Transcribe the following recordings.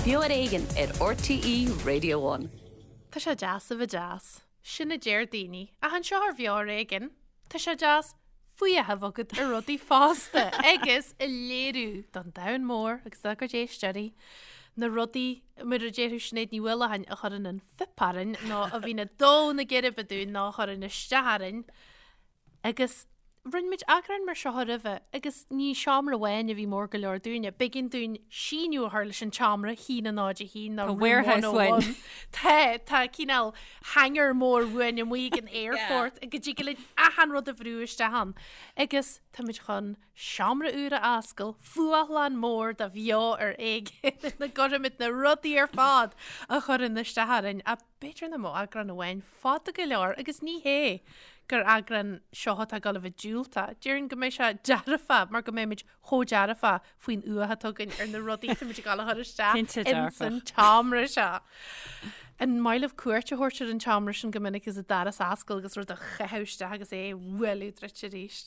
Beo ar Éigean ar RTÉ Radio One. Tá sé deas a bheith deas. Sin a deir daoine. Ach anseo ar Bheo ar Éigean, tá sé deas fuath a bheith agat ar rudaí fosta agus a léiriú don domhan mór agus dá gcuid éisteoirí na rudaí, mar a déarfadh Sinéad Ní Mhaoileacháin, a chuireann an fuip orainn nó a bhíonn ag dó na geirbe dúinn nó a chuireann isteach orainn. Agus rinne muid eagrán mar seo roimhe agus ní seomra amháin a bhí mór go leor dúinne. B'éigean dúinn síneadh a chur leis an tseomra, 1 0 1 nó Tá room warehouse 101. uainn. Tá, tá cineál hangar mór uainn amuigh ag an airport go dtig linn achan rud a bhrú isteach ann. Agus táimid chun seomra úr a oscailt, fuathlann mór de Bheo ar Éigean ina gcuirfimid na rudaí ar fad a chuireann isteach orainn. A B'fhéidir nach mbeadh eagrán amháin fada go leor agus ní hé gur eagrán seo atá ag dul a bheith diúltach. Déarfainn go mbeidh sé dearfach mar go mbeimid chomh dearfach faoin fhuath atá againn ar na rudaí atá muid ag dul a chur isteach Cinnte ins dearfach. an tseomra seo. An maith libh cuairt a thabhairt ar an tseomra sin go minic agus an doras a oscailt agus rud a chaitheamh isteach agus é a bhualadh druidte arís?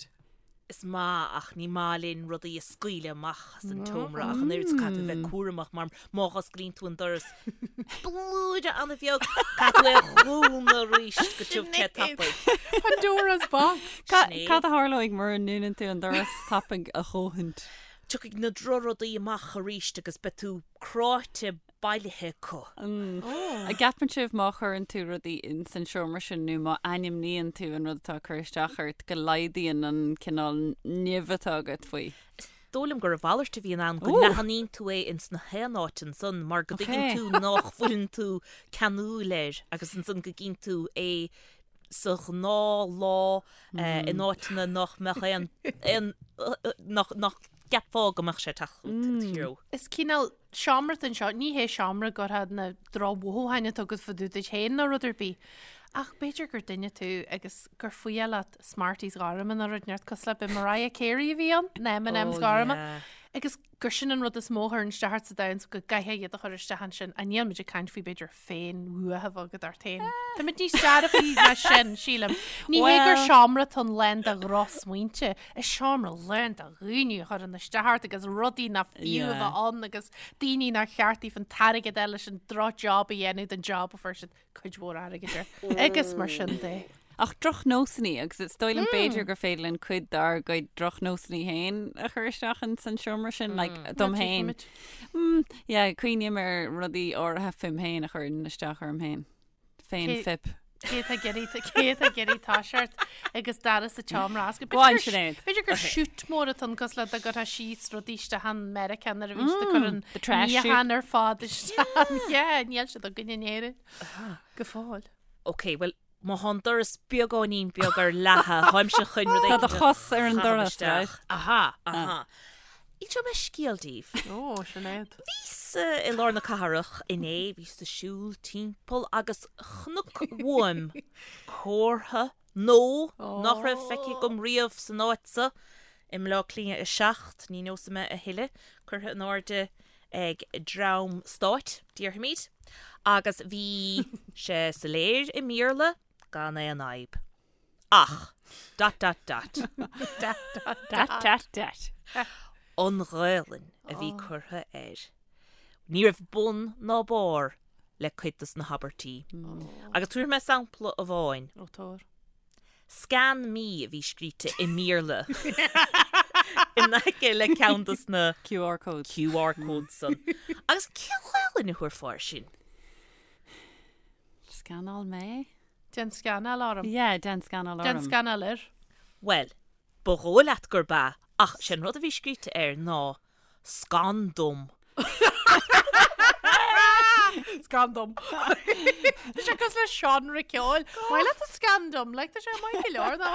Is maith ach ní maith linn rudaí a scaoileadh amach as an tseomra ach an oiread so caithfidh tú a bheith cúramach mar má osclaíonn tú an doras blúire an-bheag caithfidh tú é a dhúnadh arís go tiubh te tapaidh. Pandora's box. Sinéad. Cad a tharlóidh mura ndúnann tú an doras tapaidh a dhóthain? Tiocfaidh na drochrudaí amach arís agus beidh tú cráite bailithe acu. An gceapann sibh má chuireann tú rudaí ins an seomra sin nó má ainmníonn tú an rud atá ag cur isteach ort go laghdaíonn an cineál nimh atá agat faoi? Is dóigh liom gur a mhalairt a bhíonn ann, go leathnaíonn tú é ins na haon áit ansan mar go dtuigeann tú nách bhfuileann tú ceanúil air agus ansan go gcíonn tú é sa ghnáth lá in áiteanna nách mbeadh aon, aon, nách, nách gceapfá go mbeadh sé ag teacht i do threo. Is cineál seomra atá anseo, ní hé seomra go gcuirfeá na drochmhothúcháin atá agat fá dtaobh duit féin nó rud ar bith, ach b'fhéidir gur duine tú agus gur fuath leat Smarties gorma nó rud inteacht cosúil le b'é Mariah Carey a bhí ann, na M&M's gorma, agus gur sin an rud is mó a chuireann isteach ort sa domhan so go gcaithfeá iad a chur isteach ansin, ach níl muid ag caint faoi b'fhéidir féinfhuath a bheith agat ort féin. Táimid níos dearfaí ná sin, sílim. Ní hé gur seomra atá ann lán de dhrochsmaointe, is seomra lán de dhaoine a chuireann isteach ort agus rudaí nach fiú a bheith ann agus daoine nár cheart daofa an t-airgead a fháil leis an drochjob a dhéanamh don job a fuair siad cuid mhór airgid air. Agus mar sin de. Ach drochnósanna, agus is dóigh liom b'fhéidir gur féidir linn cuid dár gcuid drochnósanna féin a chur isteach ins an seomra sin, like, dom féin. Mm, yeah, cuimhním ar rudaí áirithe fúm féin a chuireann isteach orm féin. Féin-fhuip. Cé atá ag iarraidh, cé atá ag iarraidh toiseacht agus doras an tseomra a oscailt. Go on, Sinéad. B'fhéidir gur chute mór atá ann cosúil le dá gcuirfeá síos rudaí isteach ann Meiriceá nuair a bhíonn siad ag cur an the trash chute. níochán ar fad isteach ann. Yeah, níl siad againn in Éirinn. Go fóill. Ok, bhuel, má thá an doras beagáinín beag ar leathadh, tháimse chun rud Tá do éigin a chos ar an chaitheamh doras, isteach. right? Aha, aha. Inseoidh mé scéal daoibh. Ó, Sinéad. Bhíos i lár na cathrach inné, bhíos ag siúl timpeall agus chonac uaim comhartha nó nach raibh feicthe agam riamh san áit so, i mBleá Cliath 7, ní neosfaidh mé a thuilleadh, curtha in airde ag dream stáit, déarfaimid, agus bhí sé soiléir i mBéarla gan aon fhadhb. Ach, dot dot dot. Dot dot Dot dot dot. An Ghaelainn a bhí curtha air. Ní raibh bun ná barr le cuid dos na habairtí. Agus tabharfaidh mé sampla amháin. Ó, tabhair. Scan me a bhí scríte i mBéarla in aice le ceann dos na QR codes. QR codes san. Agus cén Ghaelainn a thabharfá air sin? Scanáil mé? Déan scanáil orm. Yeah, déan scanáil orm. Déan scanáil air. Bhuel, ba dhóigh leat gurb ea, ach sé an rud a bhí scríte air ná Scan dom. Scan dom. Tá sé cosúil le seánra ceoil. Maith leat an scan dom, like tá sé maith go leor ná.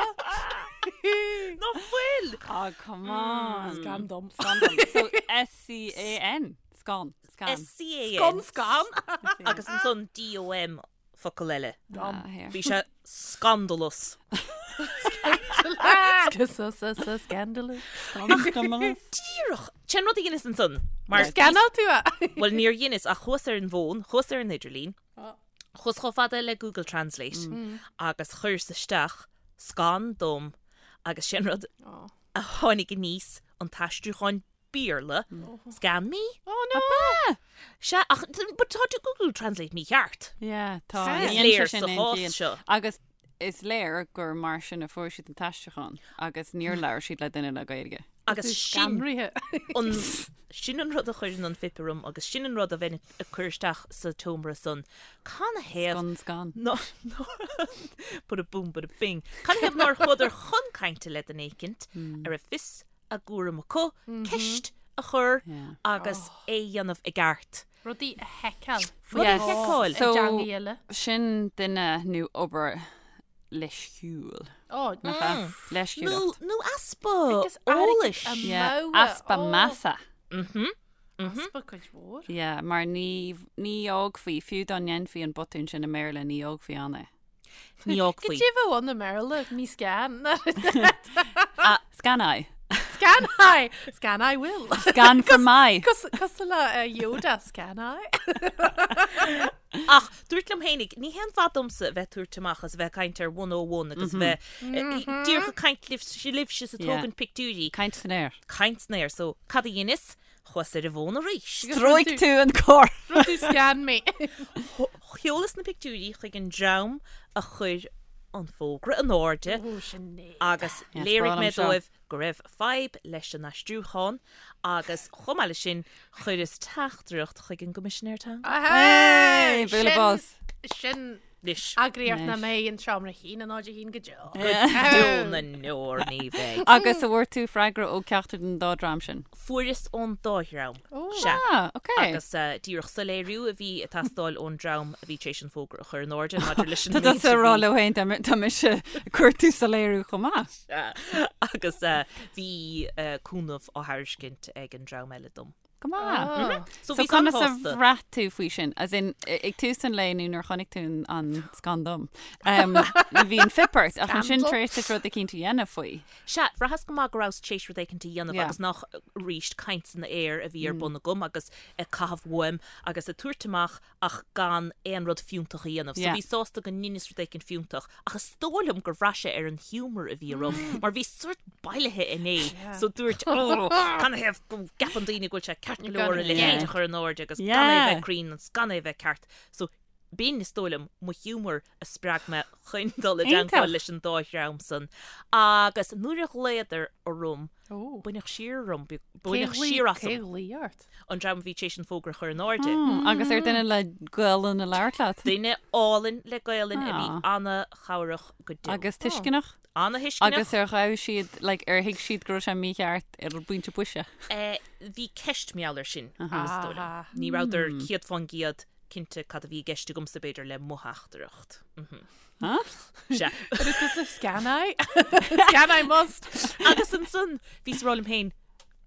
Nach bhfuil? Oh, come on. Scan dom. Scan dom. So S-C-A-N. Scan. Scan. S-C-A-N. Scan scan. Agus ansan D-O-M focal eile. Ah, here. Bhí sé scandalous. Scandalous. Scandalous. Díreach! Sin rud a dheineas ansan. Mar Scanáil tú é? Bhuel, níor dheineas ach chuas ar an bhfón, chuas ar an idirlíon, chuas chomh fada le Google Translate agus chuireas isteach scan dom agus sin rud a tháinig aníos, an t-aistriúchán. Béarla, Scan me? Oh no! Sea, ach but tá Google Translate mícheart. Yeah, tá. Is Ní dhéanann léir sé sin sa aon chás chiall. seo. Agus is léir gur mar sin a fuair siad an t-aistriúchán agus níor labhair siad le duine le Gaeilge. Agus sin Scanraithe. an sin an rud a chuireann an fuip orm agus sin an rud a bheinn ag cur isteach sa tseomra san. Canathaobh Scun scan. ná bada boom bada bing. Canathaobh nár chuadar chun cainte le duine éicint a raibh fios a gcúram acu, ceist a chur agus é a dhéanamh i gceart. Rudaí a sheiceáil. Rudaí a sheiceáil. I dteangaidh eile. Sin duine nó obair leisciúil. Ó, Nach ea? Leisciúlacht. Nó easpa Agus airgead eolais. a Yeah, mhogha. easpa Ó. measa. Easpa cuid mhór. Yeah, mar ní, ní fhágfaí, fiú dá ndéanfaí an botún sin i mBéarla, ní fhágfaí ann é. Ní fhágfaí. Goidé bheadh ann i mBéarla, me scan. Scan I. Scan I! Scan I will. Scan for my. Cosúil le Yoda, scan I. Ach dúrt liom fhéinig, ní haon mhaith domsa a bheith ag tabhairt amach is a bheith ag caint ar 101 agus a bheith díreach ag caint libhse is ag tógaint pictiúirí. Caint san aer. Caint san aer. So, cad a dheineas? Chuas ar an bhfón arís. Stróic tú an comhartha. Rinne tú scan me. Sheolas na pictiúirí chuig an dream a chuir an fógra in airde agus léirigh mé dóibh go raibh fadhb leis an aistriúchán agus chomh maith leis sin chuireas teachtaireacht chuig an gCoimisinéir Teanga. Hey! Bualadh bos. Sin Anois. Eagraíocht nach mbeidh in seomra 1 0 1 go deo. Go deo na ndeor ní bheidh. Agus an bhfuair tú freagra ó ceachtar den dá dream sin? Fuaireas ón dá dhream. Sea. Ah, ok. Agus díreach soiléiriú a bhí ag teastáil ón dream a bhí tar éis an fógra a chur in airde maidir leis an Tá méid tusa a ag rá bhí. leo féin tá mise ag cuartú soiléiriú chomh maith. Sea. Agus bhí cúnamh á thairiscint ag an dream eile dom. Go maith. So So bhíos conas a an-shásta. bhraith tú faoi sin? As in, ag tús an lae nó nuair a chonaic tú an scan dom, um, bhí an fuip ort, ach ansin tar éis duit rud eicínt a dhéanamh faoi. Sea, bhraitheas go maith go rabhas tar éis rud éicint a dhéanamh Yeah. agus nach arís caint san aer a bhí ar bun agam agus ag caitheamh uaim agus ag tabhairt amach ach gan aon rud fiúntach a dhéanamh. So Yeah. bhíos sásta go ndeineas rud éicint fiúntach ach is dóigh liom gur bhraith sé ar an hiúmar a bhí orm mar bhíos sórt bailithe inné so dúirt ó canathaobh go gceapann daoine go bhfuil sé ceart go leor a leithéid a chur in airde agus gan é bheith cruinn agus gan é bheith ceart. So b'in is dóigh liom mo hiúmar a spreag mé chun dul i dteagmháil leis an dá dhream san. Agus nuair a ghlaodar orm Baineadh siar orm, baineadh siar asam. Cé ghlaoigh ort? An dream a bhí tar éis an fógra a chur in airde. Agus ar duine le Gaelainn a labhairt leat? Duine álainn le Gaelainn a bhí ana-chabhrach go deo. Agus tuisceanach? Ana-thuisceanach. Agus ar ghabh siad, like, ar thuig siad go raibh sé mícheart ar an bpointe boise? Bhí ceist mar gheall air sin, is dóigh liom. Ní rabhadar 100% cinnte cad a bhí i gceist agamsa, b'fhéidir, le mo theachtaireacht. Sea. But it is a scan I. Scan I must. Agus ansan, bhíos ag rá liom féin,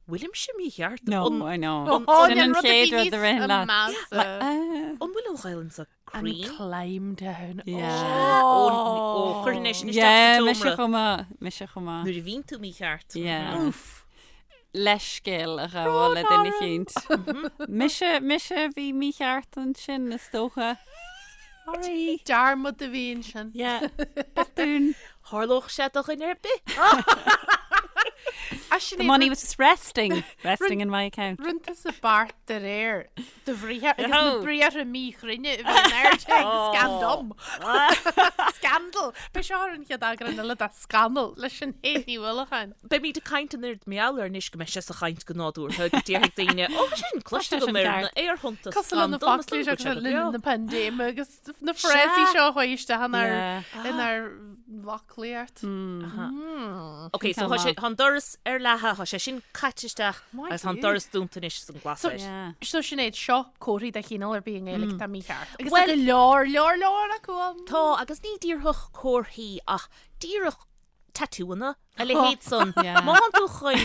bhfuilimse mícheart? No, An- I know. An- Oh, Sin an rud a bhí chéad rud a níos ritheann leat. measa. An bhfuil an Ghaelainn seo An cruinn? climb down. Yeah. Ó, ó, chuirfinn é sin isteach Yeah, sa mise tseomra. chomh maith, mise chomh maith. Nuair a bhíonn tú mícheart. Yeah. Oof. Leithscéal a ghabháil le duine eicínt. Mise, mise a bhí mícheart ansin, is dócha. Sorry. Dearmad a bhí ansin. Yeah. Botún. Tharlódh sé do dhuine ar bith. The money was just resting, resting in my account. Rinne tusa beart de réir do bhriathar agus na briathra míchruinne a bhí in airde ag scan dom. Scandal! Beidh seo ar an chéad eagrán eile de Scannal le Sinéad Ní Uallacháin. Beimid ag caint an oiread mar gheall air anois go mbeidh sé sa chaint go nádúrtha go déarfaidh daoine, Ó, tá sé sin cloiste agam ar na aerthonnta Cosúil le na foclaí seo le linn na paindéime agus na frásaí seo a chuaigh isteach inár inár bhfoclaíocht. Ok, so tá sé, tá an doras ar leathadh, tá sé sin caite isteach agus tá an doras dúnta anois is an glas air. So Sinéad, seo comharthaí de chineál ar bith i nGaeilge atá mícheart. Agus tá go leor, leor, leor acu ann. Tá, agus ní díreach comharthaí ach díreach tatúanna, a leithéid san. Má thánn tú chun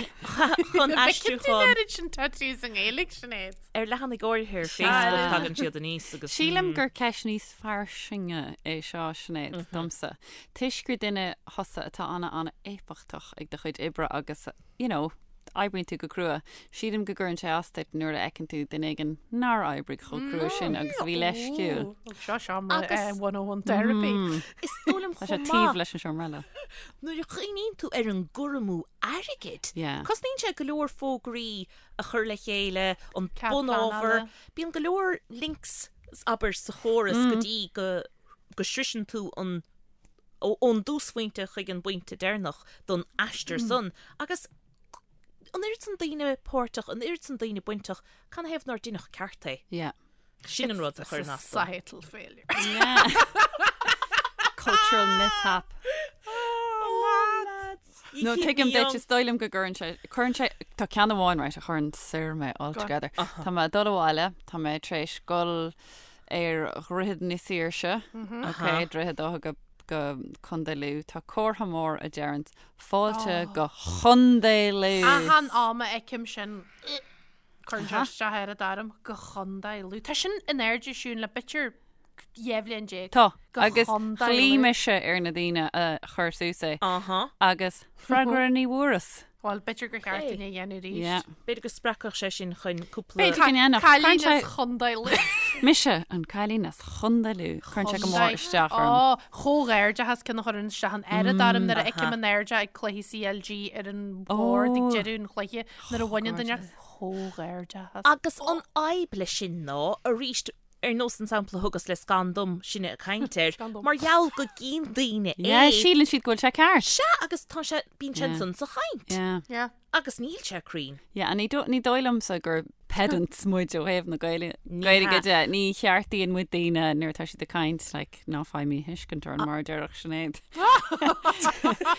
chun aistriúchán. An oiread sin tattoos i nGaeilge, Sinéad. Ar leathanaigh áirithe ar Facebook tagann siad aníos agus. Sílim gur ceist níos fairsinge é seo, Sinéad, domsa. Toisc gur duine thusa atá ana-ana-éifeachtach ag do chuid oibre agus, you know, oibríonn tú go crua. Sílim go gcuireann sé as duit nuair a fheiceann tú duine éigin nár oibrigh chomh crua sin agus a bhí leisciúil. Seo seomra Agus- 101 therapy. Is dóigh liom Tá sé chomh taobh maith leis an seomra eile. nuair a chuimhníonn tú ar an gcur amú airgid. Yeah. Cosnaíonn sé go leor fógraí a chur le chéile, an Cead bunábhar. pleanála. Bíonn go leor links abair sa chóras go dtí go go sroiseann tú an ón dtúsphointe chuig an bpointe deireanach don aistear san agus an oiread san daoine páirteach, an oiread san daoine bainteach, canathaobh nár deineadh ceart é? Yeah. Sin an rud a chuireann as dom. Societal failure. Yeah. Cultural mishap. Oh, lads. You No, keep tuigim me duit, young. is dóigh liom go gcuireann sé, cuireann sé, tá ceann amháin, right, a chuireann soir mé altogether. Tá mé ag dul abhaile, tá mé tar éis dul ar Dhroichead na Saoirse, ok, Droichead Átha go go Contae Lú, tá comhartha mór a deireann fáilte go Chontae Lú. Achan am a fheicim sin, cuireann sé isteach ar an orm, go Chontae Lú. Tá sin in airde Siún le b'fhéidir 12 bhliain. Tá, Go agus Chontae ghlaoigh Lú. mise ar na daoine a chuir suas é Aha. agus freagra ní bhfuaireas. Bhuel, b'fhéidir gur cheart dúinn é a dhéanamh arís. Yeah. B'fhéidir go spreagfadh sé sin chun cúpla... B'fhéidir go ndéanfadh. Cailín Cuireann sé- as Chontae Lú. Mise, an cailín as Chontae Lú. Cuireann sé go mór isteach orm. Ó, chomhghairdeachas ceann a chuireann isteach an oiread orm nuair a fheicim in airde ag cluichí CLG ar an bhord ag deireadh an chluiche nuair a bhaineann duine chomhghairdeachas. Agus an fhadhb leis sin ná, arís, ar nós an sampla a thugas le scan dom, sinne ag caint air, mar gheall go gcíonn daoine é. Yeah, síleann siad go bhfuil sé ceart. Sea, agus tá sé, bíonn sé ansan sa chaint. Yeah. Yeah. Agus níl sé cruinn. Yeah, and ní ní dóigh liomsa gur pedants muid ó thaobh na Gaeilge Gaeilge de. Ní cheartaíonn muid daoine nuair atá siad ag caint, like, ná faigh míthuiscint orainn mar a déarfadh Sinéad.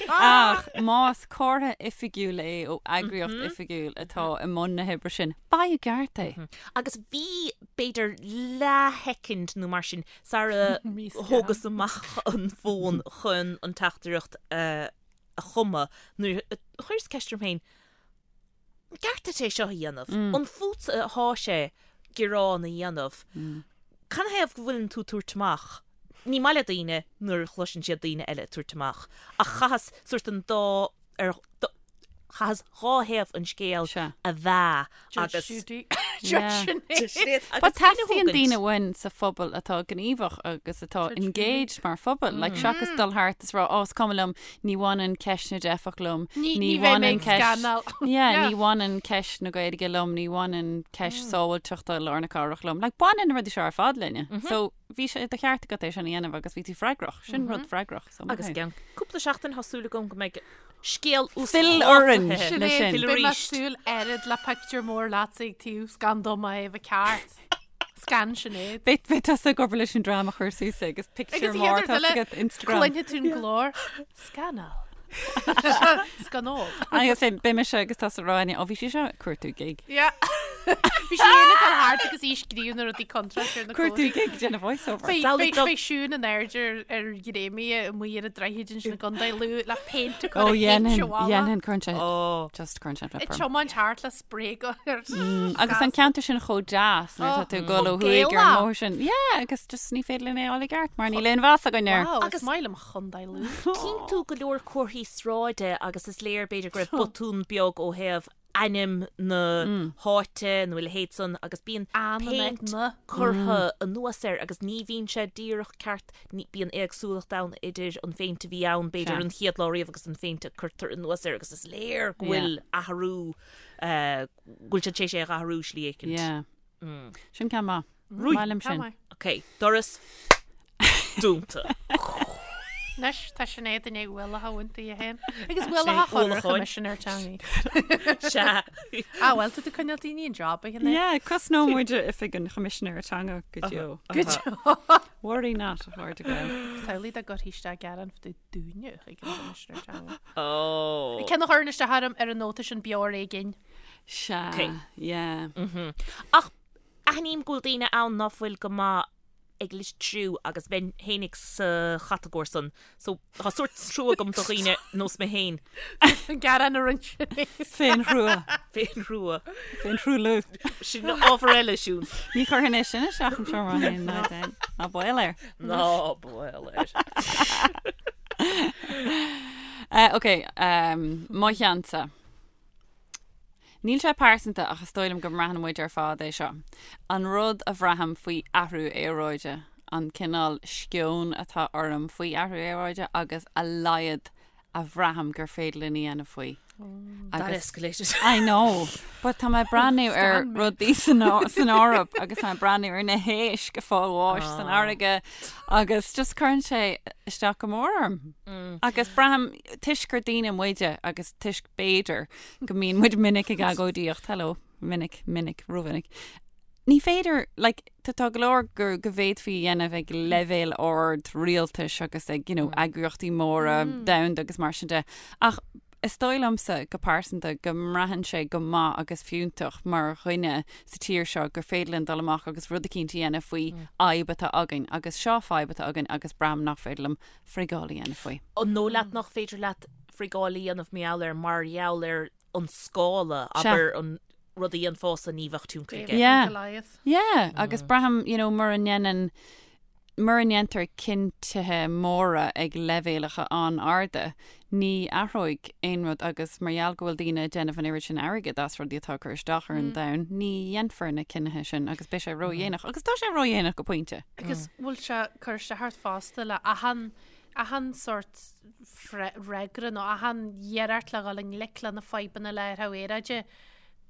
Ach más comhartha oifigiúil é ó eagraíocht oifigiúil atá i mbun na hoibre sin, faigh i gceart é. Agus bhí, b'fhéidir, leathshoicind nó mar sin sara thógas amach an fón chun an teachtaireacht a chumadh nuair a chuireas ceist orm féin, an gceart duit é seo a dhéanamh? An fútsa athá sé gearán a dhéanamh? Canathaobh go bhfuileann tú ag tabhairt amach? Ní maith le daoine nuair a chloiseann siad daoine eile ag tabhairt amach, ach chaitheas sórt an dá, ar, chaitheas dhá thaobh an scéil a mheá agus. Judge Judy. Judge Sinéad. But teastaíonn daoine uainn sa phobal atá gníomhach agus atá engaged mar phobal, like seachas dul thart is rá, oh, is cuma liom, ní bhaineann ceist na dteifeach liom, Ní bheidh mé ag scanáil. Yeah, ní bhaineann ceist na Gaeilge liom, ní bhaineann ceist sábháilteachta lár na cathrach liom. Like baineann na rudaí seo ar fad linne. So bhí sé de cheart agat é sin a dhéanamh agus bhí tú freagrach. Sin rud freagrach. So Agus i gceann cúpla seachtain tá súil agam go mbeidh scéal Fill orainn uasdhátaithe. le sin. Sinéad, beidh mé ag súil oiread le pictiúr mór leatsa ag taobh scan dom a thaobh a ceart. Scan Sinéad. Beidh beidh tusa ag obair leis an dream a chuir suas é agus pictiúr mór atá agat Instagram. Cluinfidh tú an glór. Scanal. Scanól. Agus beidh mise agus tusa ag rá ó bhí sí seo ag cuartú gig. Yeah. Bhí sí ag dul thart agus í ag scríobh na rudaí contráilte ar na Cuartú gig déanamh voice-over. Beidh beidh Siún in airde ar ar ghréamaí amuigh ar an droichead ansin i gContae Lú le péint a chur Ó ar dhéanfainn, shéimse bhalla. dhéanfainn, cuireann sé, Ó. just cuireann sé Ag flip orm. tiomáint thart le spray gun ar Agus an ceantar sin chomh deas nuair atá tú ag dul ó thuaidh ar an mbóthar sin. Yeah, agus just ní féidir linn é a fháil i gceart mar níl aon mheas againn air. Wow, Agus- is maith liom Chontae Lú. Cíonn tú go leor comharthaí sráide agus is léir b'fhéidir go raibh botún beag ó thaobh ainm na háite nó a leithéid san agus bíonn péint curtha anuas air agus ní bhíonn sé díreach ceart, bíonn éagsúlacht ann idir an phéint a bhí ann b'fhéidir an chéad lá riamh agus an phéint a cuirtear anuas air agus is léir go bhfuil athrú, go bhfuil siad tar éis é a athrú slí éicint. Yeah. Sin ceann maith. Maith liom sin. Ok, doras dúnta. Anois tá Sinéad i ndiaidh ualach a bhaint di féin. Agus ualach a chur ar Choimisinéir Teanga. Sea. Ah, bhuel, tá tú ag coinneáil daoine in job a Shinéad. Yeah, cosnóidh muid oifig an Choimisinéara Teanga go deo. Go deo. Worry not, a chairde Gael. Samhlaigh dá gcuirfí isteach gearán fá dtaobh dúinne chuig an Choimisinéir Teanga. Oh. Ceann a chuireann isteach orm ar an nóta sin beo ar éigin. Sea, Ok. yeah. Ach Aithním go bhfuil daoine ann ná fuil go maith ag litriú agus bheinn fhéinig sa chatagóir san so tá sórt trua agam do dhaoine nós mé féin. An gearán a rinne Sinéad. Féinthrua. Féinthrua. Féinthruailliú. Sin ábhar eile, Siún. Ní chuirfinn é sin isteach im seomra féin ná déan. Ná baol air. Ná baol air. Ok, mo cheannsa. Níl sé pearsanta ach is dóigh liom go mbraitheann muid ar fad é seo. An rud a bhraithim faoi athrú aeráide, an cineál sceoin atá orm faoi athrú aeráide agus a laghad a bhraithim gur féidir linn a dhéanamh faoi. That escalated. I know, but tá mé ag breathnú ar rudaí san Eoraip agus tá mé ag breathnú ar na héisc ag fáil bháis san fharraige agus just cuireann sé isteach go mór orm. Agus braithim toisc gur daoine muide agus toisc b'fhéidir go mbíonn muid minic ag agóidíocht, hello, minic, minic, rómhinic. Ní féidir, like, tá tá go leor go go bhféadfaí a dhéanamh ag leibhéal ard rialtais agus ag, you know, eagraíochtaí móra domhanda agus mar sin de, ach is dóigh liomsa go pearsanta go mbraitheann sé go maith agus fiúntach mar dhuine sa tír seo gur féidir linn dul amach agus rud eicínt a dhéanamh faoi fhadhb atá againn agus seo fadhb atá againn agus braithim nach féidir liom frigáil a dhéanamh faoi. An dóigh leat nach féidir leat frigáil a dhéanamh mar gheall air mar gheall ar an scála, abair an rud a dhéanfása ní bheadh tionchar aige. Yeah. Yeah, agus braithim, you know, mura ndéanann, mura ndéantar cinntithe móra ag leibhéalacha an-arda, ní athróidh aon rud agus mar gheall go bhfuil daoine ag déanamh an oiread sin airgid as rudaí atá ag cur isteach ar an domhan, ní dhéanfar na cinnithe sin agus beidh sé ródhéanach. Agus tá sé ródhéanach go pointe. Agus bhfuil sé ag cur isteach ort fosta le achan achan sórt freagra nó achan iarracht le dhul i ngleic le na fadhbanna le athrú aeráide,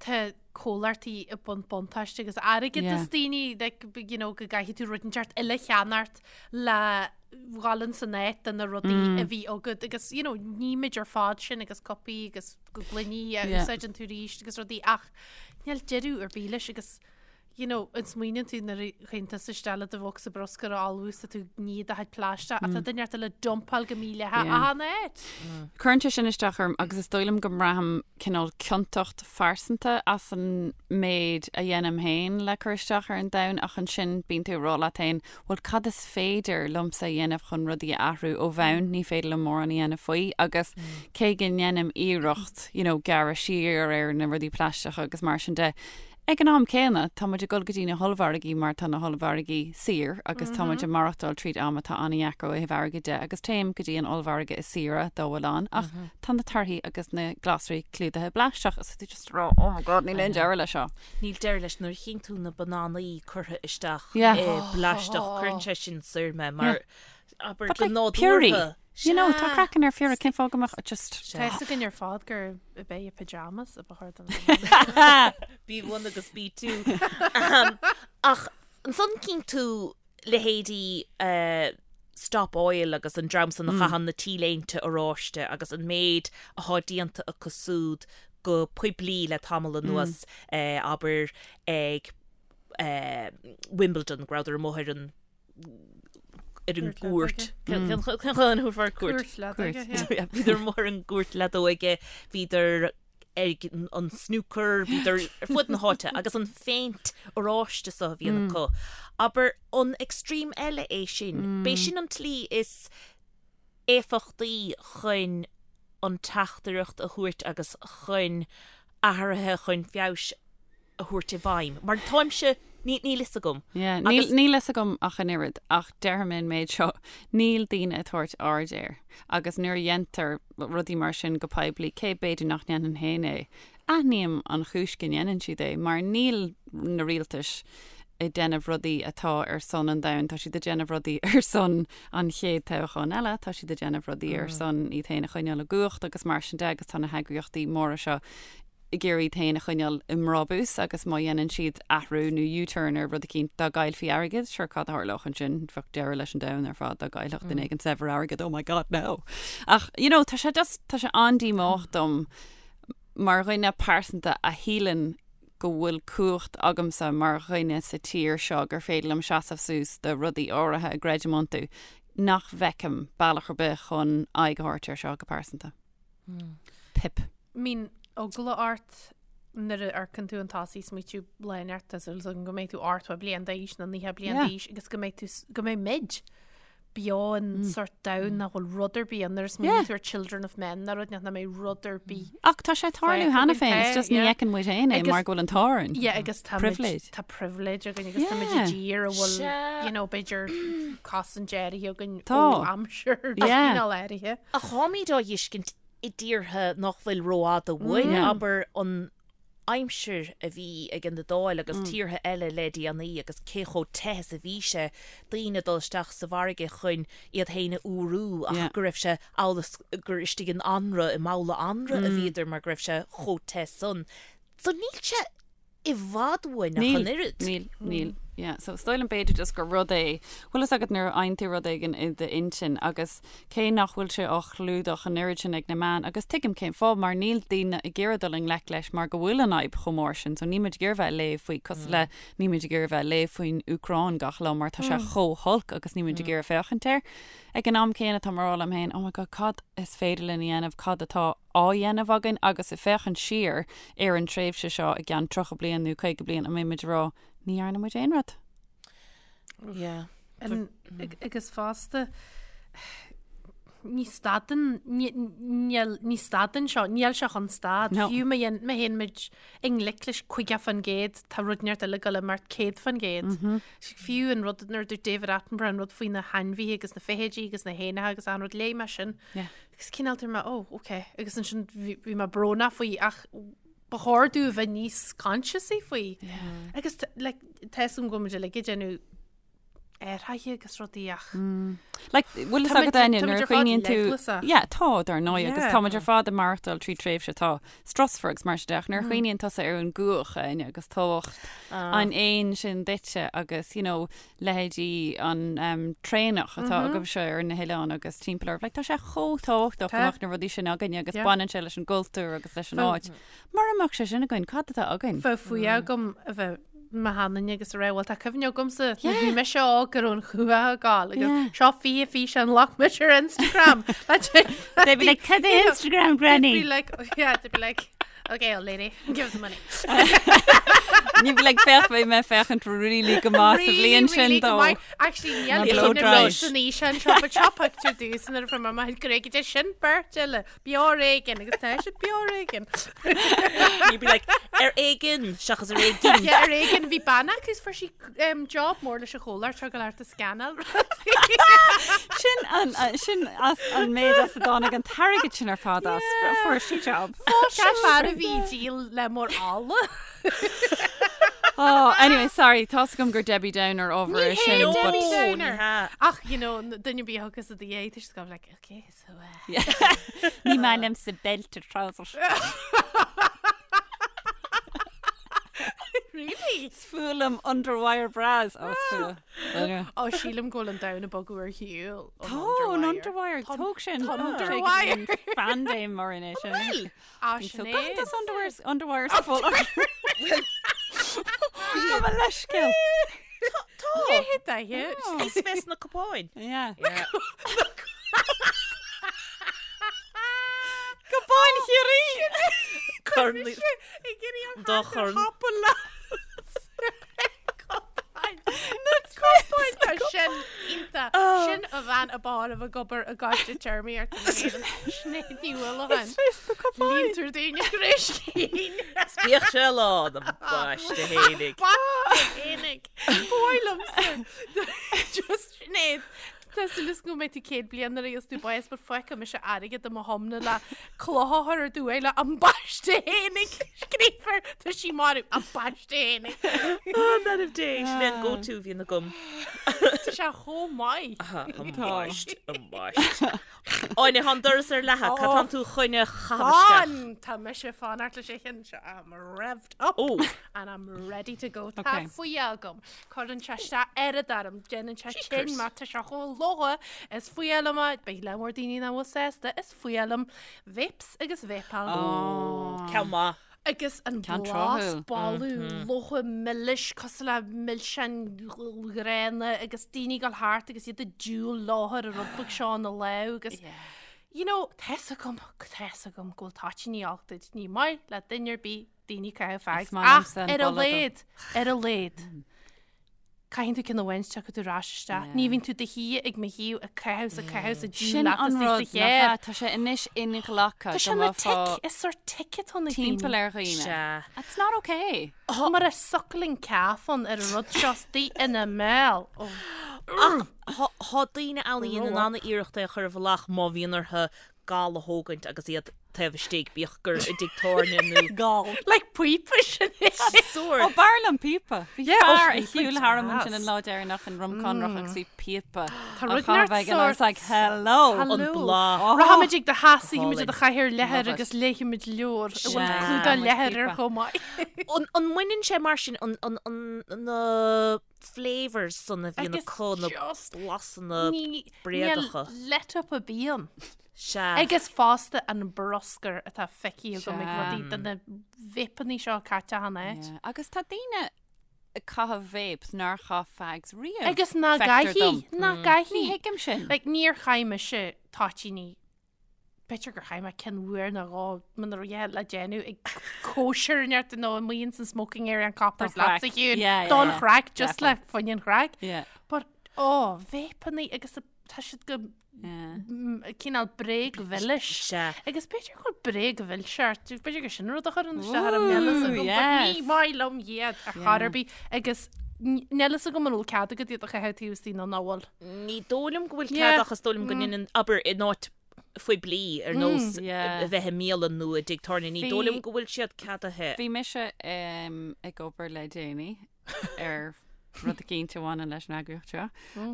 tá comhlachtaí ag baint buntáiste agus airgead as daoine, like, you know, go gcaithfidh tú rud inteacht eile a cheannacht le dhul in san áit de na rudaí a bhí agat agus, you know, nímid ar fad sin agus cupaí agus gloiní a úsáideann tú arís agus rudaí ach níl deireadh ar bith leis agus you know, an smaoiníonn tú nuair a théann tusa isteach le do bhocsa bruscair a ullmhú is tá tú ag ní do chuid plaisteach ach tá duine inteacht eile ag dumpáil go mídhleathach achan áit. Cuireann sé sin isteach orm agus is dóigh liom go mbraithim cineál ciontacht phearsanta as an méid a dhéanaim féin le cur isteach ar an domhan ach ansin bíonn tú ag rá leat féin, bhuel cad is féidir liomsa a dhéanamh chun rudaí a athrú ó bhonn, ní féidir liom mórán a dhéanamh faoi agus cé go ndéanaim iarracht, you know, gearradh siar ar na rudaí plaisteacha agus mar sin de, Ag an am céanna, tá muid ag dul go dtí na hollmhargaí mar tá na hollmhargaí saor agus tá muid ag maireachtáil tríd am atá an-dheacair ó thaobh airgid de agus téim go dtí an ollmhargadh is saoire dá bhfuil ann ach tá na torthaí agus na glasraí clúdaithe i bplaisteach is tú just ag rá oh my god níl aon deireadh leis seo. Níl deireadh leis nuair a chíonn tú na bananaí curtha isteach i bplaisteach cuireann sé sin soir mé mar abair But go like piorraí, nádúrtha. you know, tá craiceann ar phiorra, cén fáth go mbeadh just. Tá fhios againn ar fad gur ab é pyjamas a ba chóir don bhanana. B1 agus B2. Ach ansan cíonn tú leithéidí Stop Oil agus an dream san a chaitheann na T-léinte oráiste agus an méid athá déanta acu súd go poiblí le tamall anuas, abair ag Wimbledon, go rabhadar amuigh ar an ar an gcúirt. Cén chaoi cúirt? Bhíodar amuigh ar an gcúirt leadóige, bhíodar ag an snooker, bhíodar ar fud na háite agus an phéint oráiste so a bhíonn acu. Abair an extreme eile é sin. B'é sin an tslí is éifeachtaí chun an teachtaireacht a thabhairt agus chun athruithe chun feabhais a thabhairt i bhfeidhm. Mar táimse, ní, níl fhios agam. Yeah, níl, Agus- níl fhios agam ach an oiread, ach déarfaidh mé an méid seo, níl daoine ag tabhairt aird air. Agus nuair a dhéantar rudaí mar sin go poiblí, cé b'fhéidir nach ndéanfainn féin é, aithním an chúis go ndéanann siad é, mar níl na rialtais ag déanamh rudaí atá ar son an domhain, tá siad ag déanamh rudaí ar son an chéad toghcháin eile, tá siad ag déanamh rudaí ar son iad féin a choinneáil i gcumhacht agus mar sin de agus tá na heagraíochtaí móra seo ag iarraidh iad féin a choinneáil i mbrabús agus má dhéanann siad athrú nó U-turn ar rud eicínt dá gcaillfí airgead, sure cad a tharlódh ansin, bheadh deireadh leis an domhan ar fad dá gcaillfeadh duine éigin saibhir airgead, oh my god no! Ach you know tá sé just, tá sé an-díomách dom mar dhuine pearsanta a shíleann go bhfuil cumhacht agamsa mar dhuine sa tír seo gur féidir liom seasamh suas do rudaí áirithe a gcreidim iontu, nach bhfeicim bealach ar bith chun aghaidh a thabhairt air seo go pearsanta. Pip. Mbíonn eagla ort nuair a amharcann tú chun tosaigh smaoitiú lá inteacht tá súil agam go mbeidh tú 80 bliain d'aois nó 90 bliain d'aois agus go mbeidh tú go mbeidh muid beo in sort domhan nach bhfuil rud ar bith ann nuair a smaoiníonn tú ar Children of Men nó rud nach mbeidh rud ar bith. Ach tá sé ag tarlú cheana féin, it's just ní fheiceann muid féin é mar go bhfuil an t-ádh orainn. Yeah, agus tá Privilege. tá privilege againn agus tá muid i dtír a bhfuil, you know, b'fhéidir cosaint áirithe againn ó aimsir cineál áirithe. Ach táimid á fheiscint i dtíortha nach bhfuil rófhada uainn, abair an aimsir a bhí ag an Iodáil agus tíortha eile le déanaí agus cé chomh te is a bhí sé, daoine ag dul isteach sa bhfarraige chun iad féin a fhuarú ach go raibh sé amhail is gur istigh in anraith, i mbabhla anraith a bhíodar mar go raibh sé chomh te san. So níl sé i bhfad uainn ach an oiread. Níl, níl, yeah. So is dóigh liom b'fhéidir just gur rud é, bhfuil fhios agat nuair a fhaigheann tú rud éigin i d'intinn agus cé nach bhfuil sé á chlúdach an oiread sin ag na meáin agus tuigim cén fáth mar níl daoine ag iarraidh dul i ngleic leis mar go bhfuil an fhadhb chomh mór sin so níl muid ag iarraidh bheith ag léamh faoi cosúil le níl muid ag iarraidh bheith ag léamh faoin Úcráin gach lá mar tá sé chomh holc agus níl muid ag iarraidh féachaint air. Ag an am céanna tá mé ag rá liom féin oh my god cad is féidir linn a dhéanamh cad atá á dhéanamh againn agus ag féachaint siar ar an tréimhse seo i gceann 30 bliain nó 50 bliain an mbeidh muid ag rá ní dhearna muid aon rud. Yeah. Agus fosta ní stadann ní stadann seo, níl sé chun stad. Fiú má théann muid i ngleic leis 50% tá rud inteacht eile ag dul imeacht 100%. Fiú an rud nuair a dúirt David Attenborough an rud faoi na hainmhithe agus na feithidí agus na héanacha agus an rud léigh mé sin. Agus cineál dúirt mé, oh, ok. Agus ansin bhí mé brónach faoi ach ba chóir dúinn a bheith níos consciousaí faoi. Agus like, tá fhios agam go bhfuil muid uilig ag déanamh athruithe agus rudaí ach. Like, bhfuil fhios agat Áine, nuair a chuimhníonn tú Yeah, tá dar ndóigh agus táimid ar fad ag maireachtáil trí tréimhse atá strusmhar agus mar sin de ach nuair a chuimhníonn tusa ar an gcuach Áine agus tábhacht an éin sin duitse agus you know, leithéidí an traonach atá agaibhse ar na hoileáin agus timpeall oraibh. Like, tá sé chomh tábhachtach go mbeadh na rudaí sin againne agus baineann sé leis an gcultúr agus leis an áit. Mura mbeadh sé sin againn, cad atá againn? Bheadh fuath agam a bheith i mo sheanduine agus a rá, bhuel tá cuimhne agamsa nuair a bhí mise óg go raibh an chuach ag gabháil agus seo 20 físeán a ghlac mise ar Instagram. They'd be like, cad é Instagram, Granny? They'd be like, yeah, they'd be like, Okay, old lady, give us the money. Ní bheidh like féach beidh mé féachaint really go maith sa bhliain sin dó. Actually, níl Blow dry. san fhíseán seo, but seo pictiúr domhsa nuair a fuair mé mo ghréige sin beirt eile, beo ar éigean agus tá siad beo ar éigean. You'd be like, ar éigean seachas ar éigin. Yeah, ar éigean bhí bean acu is fuair sí um, job mór leis an chomhlacht seo go leor scannáil Sin an sin as an méid as a dtáinig an t-airgead sin ar fad as fuair sí job. Sé fear a bhí díol le mór ála. Oh, anyway, sorry, tá 's agam gur Debbie Downer ábhar é sin. Ní hé Debbie Downer. Ach, you know, duine bí thugas a dhééis tá siad like, okay, so uh... Ní maith liomsa belted trousers. Really? Is fuath liom underwire bras. Ó, is fuath. Ó, sílim go bhfuil an domhan ag bogadh ar shiúl. Tá an underwire, tóg sin. Underwire. Paindéim mar in é sin. Bhfuil? Á, sin é. Gach das underwires, underwires sa fóla. Tá mo leithscéal. Tá. Tá. Is bheas na cupáin. Yeah. Cupáin Chiarraí! Corn. Ag iarraidh an Dá chorn. Cupáin Tá sin iontach. Sin a bhean a b'fhearr a bheith ag obair i gcoiste téarmaíochta na hÉireann. Sinéad Ní Uallacháin. Líontar daoine gréiscín. Bíodh sé lán ambaiste fhéinig. Fhéinig. Ba mhaith liomsa. Just Sinéad. Tá súil agam go mbeidh tú 100 bliain nuair a gheobhas tú bás but fágfaidh mise airgead i mo thiomna le cloch a chur ar do uaigh le ambaiste fhéinig scríofa air tá sí marbh ambaiste fhéinig. An Dé sin é an go-to a bhíonn agam. Tá sé chomh maith. Ambaiste, ambaiste. Áine, tá an doras ar leathadh, cad tánn tú chun a chaitheamh isteach? Fan! Tá mise ag fanacht leis an cheann seo. I'm revved up Oh. and I'm ready to go. Tá Okay. fuath agam. Cuireann sé isteach oiread orm, déanann sé tinn mar tá sé chomh logha, is fuath liom é, beidh lear mór daoine nach bhfuil sásta, is fuath liom vapes agus vapáil. Ceann maith. Agus an Ceann blas, tráthúil. boladh, logha milis, cosúil le milseáin ghránna agus daoine ag dul thart agus iad ag diúl leo ar an rud beag seo ina lámh agus you know, tá 'fhios agam, tá 'fhios agam go bhfuil toitíní olc duit, ní maith le duine ar bith daoine ag caitheamh fags. Is maith Ach liomsa an ar a boladh dó. laghad, ar a laghad, caitheann tú ceann amháin tiocfaidh tú ar ais isteach. Yeah. Ní bhíonn tú do shuí ag mo thaobh ag caitheamh 's ag caitheamh 's ag díol Sin leat an is rud sa nach chéir. ea, tá sé anois inghlactha Tá sé go ina mbeifeá tic, is sórt tic atá ann ag daoine. timpeall ar dhaoine. Sea. It's not okay. Mar a suckling calf ann ar an rud seo istigh ina mbéal. Oh. Ach thá daoine ann a dhéanann an-iarracht é a chur i bhfolach má bhíonn orthu gal a thógaint agus iad. taobh istigh, bíodh gur i dtigh tábhairne nó. Gal. Like píopa sin é. Sórt. Ó, b'fhearr liom píopa. Bhí Yeah, ó, fear ag píopa shiúl tharam ansin deas. an lá deireanach in Rum Conrach agus bhí píopa Tá á rud chaitheamh neart aige and I was sórt. like, hello. Hello. An bláth. Rachaimid ag do theach, suífimid i do Álainn. chathaoir leathair Love it. agus léifimid leabhar a bhfuil Sea, clúdach muid leathair air píopa. chomh maith. An an mbaineann sé mar sin an an an na flavours san a bhíonn Agus acu, na just blasanna ní bréagacha. níl let up ar bith ann. Sea. Agus fosta an bruscar atá feicthe agam ag Sea. rudaí de na vapeanna seo caite achan áit. Yeah. Agus tá daoine ag caitheamh vapes nár chaith fags riamh. Agus ná feictear dom. gcaithfidh, ná gcaithfidh. Ní thuigim sin. Like, níor chaith mise toitíní, b'fhéidir gur chaith mé ceann uair nó dhó muna raibh a dhath le déanamh ag cóisir neart nó amuigh ins an smoking area an Coppers Don chraic. leatsa Shiún. Yeah, yeah, Don yeah. chraic, just le Definitely. fá choinne an chraic. Yeah. But, oh, vapeanna agus tá siad go Yeah. cineál bréagmhilis. Sea. Agus b'fhéidir go bhfuil bréagmhilseacht, b'fhéidir gur sin rud a chuireann isteach ar an níl a fhios agam, but yes. ní maith liom iad ar chor ar bith agus níl a fhios agam an bhfuil cead agat iad a chaitheamh taobh istigh nó nach bhfuil. Ní dóigh liom go bhfuil Yeah. cead ach is dóigh liom go ndéanann, abair, in áit phoiblí ar nós Yeah. a bheith i mbialann nó i dtigh tábhairne, ní Bhí- dóigh liom go bhfuil siad ceadaithe. Bhí mise em, ag obair le déanaí ar rud eicínt a bhaineann leis an eagraíocht seo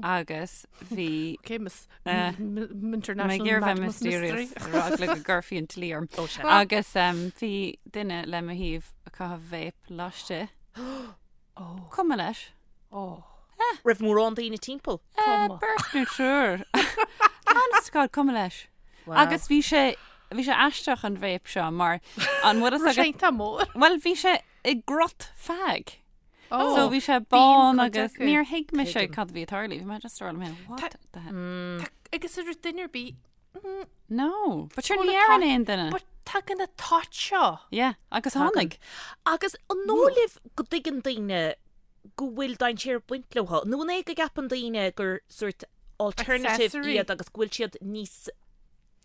agus bhí Okay, Miss Eh, International Mé ag iarraidh bheith Madness Mystery. mysterious ar eagla go gcuirfí an dlí orm. Ó, sea. Agus em, bhí duine le mo thaobh ag caitheamh vape laistigh. Cuma leis. Oh. Raibh mórán daoine timpeall. Eh, Beirt nó triúr. Honest to God, cuma leis. Wow. Agus bhí sé bhí sé aisteach an vape seo mar an bhfuil a fhios agat Tá mór. Well bhí sé i gcruth fag. Oh. So bhí sé bán cuid agus acu. níor thuig mise Tuigim. cad a bhí ag tarlú. Bhí mé just ag rá liom féin, what the hell? Tá- Agus an raibh duine ar bith. No, but sure Bhuel, ní tá- deireann aon duine. But tagann na toit seo. Yeah, agus tháinig. Agus an dóigh libh go dtuigeann daoine go bhfuil dainséar ag baint leo? Nó an é go gceapann daoine gur sort alternative Accessory. iad agus go bhfuil siad níos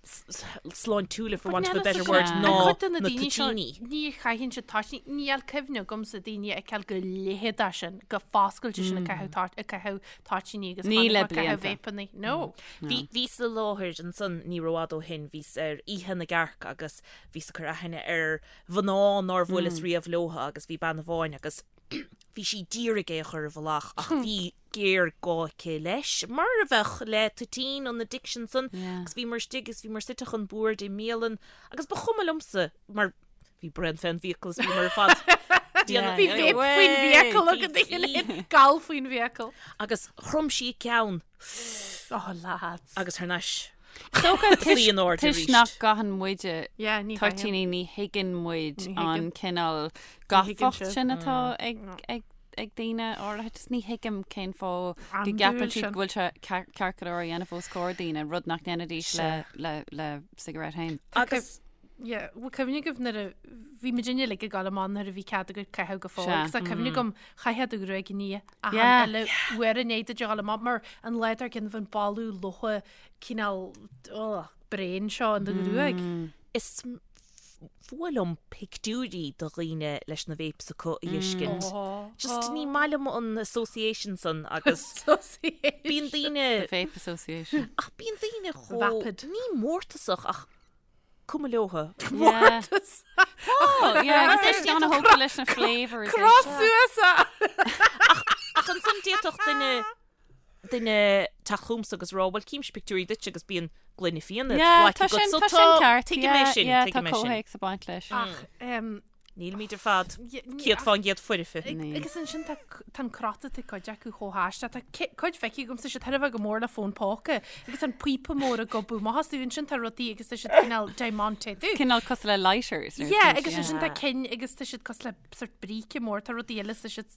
sláintiúla for want of a Níl better fhios word agam. ná An cuid de na na daoine seo, toitíní. Ní chaitheann siad toitíní, níl cuimhne agamsa daoine a fheiceáil go leitheadach sin, go foscailte sin ag caitheamh toit- ag caitheamh toitíní agus Ní tháinig le ag caitheamh blianta. vapeanna. No. Bhí bhíos i láthair ansan ní rófhada ó shin, bhíos ar Oíche na gCearc agus bhíos ag cur aithne ar mhná nár bhuaileas riamh leotha agus bhí bean amháin agus bhí sí d'iarraidh é a chur i bhfolach ach bhí géarghá aici leis, mar a bheadh le toitín an addiction san agus bhíomar istigh agus bhíomar suite chun boird i mbialann agus ba chuma liomsa mar bhí braon fén bhfiacail is bhíomar ar fad déanamh Bhí vape faoin bhfiacail agat a chéile, gal faoin bhfiacail. Agus chrom sí a ceann. Oh lads. Agus thar n-ais. Dócha Suí in airde toisc arís. nach gcaitheann muide Yeah, ní toitíní ní thuigeann muid Ní an thuigeann. cineál thuigeann gafacht sibh. sin atá ag ag ag daoine áirithe. Just ní thuigim cén fáth go Andúil gceapann siad sin. go bhfuil sé ceart ceart go leor a dhéanamh os comhair daoine, rud nach ndéanfaidís le le le cigarette féin. Agus Yeah, bhfuil cuimhne agaibh nuair a bhí muidinne uilig ag gabháil amach nuair a bhí cead agat caitheamh go fóill Sea. agus tá cuimhne agam chaithfeá do ghruaig a ní achan Yeah. uile uair i ndiaidh duit a ghabháil amach mar an lá dár gcionn bhí an boladh lofa cineál oh, bréan seo in do ghruaig. Is fuath liom pictiúirí de dhaoine leis na vapes acu a fheiscint. Just ní maith liom an association san agus bíonn daoine The Vape Association. ach bíonn daoine chomh Vapid. ní mórtasach ach cuma leotha. Mórtas. Oh, yeah, agus tá siad ana-thógtha leis na flavours. Cross suas a! Ach ansan d'fhéadfadh duine duine teacht chugamsa agus rá, bhuel címse pictiúirí duit agus bíonn gloine fíona Yeah, glactha tá agat. sin So tá sin ceart. Tuigim é Yeah, sin, yeah, tá tuigim é sin. comhthéacs ag baint leis. Ach, em, Nílimid ar fad Ní- 100% foirfe. Ní. Agus ansin tá tá an crot atá cuid acu chomh haisteach. Tá ci- cuid feicthe agamsa siad thar a bheith go mór le fón póca agus tá an píopa mór ag gobadh amach astu. Ansin tá rudaí agus tá siad cineál diamantéadú. Cineál cosúil le lighters. nó Yeah, rud agus yeah. ansin tá cinn agus tá siad cosúil le sort bríce mór, tá rudaí eile tá siad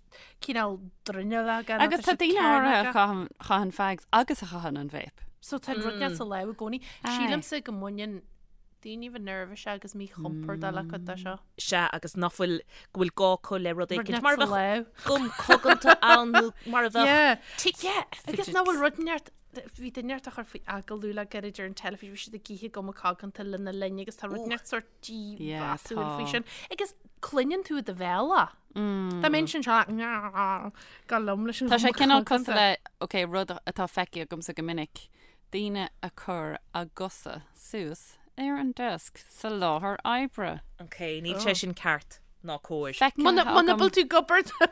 cineál dronuilleogach nó Agus tá tá siad daoine áirithe a cearnógach. chaitheann chaitheann fags agus a chaitheann an vape. So tá an rud mm. sa lámh i gcónaí. Aye. Sílimse go mbaineann daoine bheith nervous agus míchompordach le cuid de seo. Sea, agus nach bhfuil, go bhfuil gá acu le rud éicint, mar a Rud bheadh leat gum coganta ann nó mar a bheadh Yeah. tic. Yeah, agus nach bhfuil rud neart, bhí duine neart á chur faoi agallamh le gairid ar an teilifís, bhí siad ag ithe guma coganta lena linn agus tá rud neart sort dímheasúil faoi tá. sin. Agus cluineann tú i do bhéal é. Dá mbeinn sin seo, go liom leis an Tá sé ghuma cineál coganta. cosúil le, ok, rud atá feicthe agamsa go minic, daoine a cur a gcosa suas. ar an desk sa láthair oibre. Ok, níl sé sin ceart ná cóir. Feicthe Muna agam. bhfuil tú ag obair do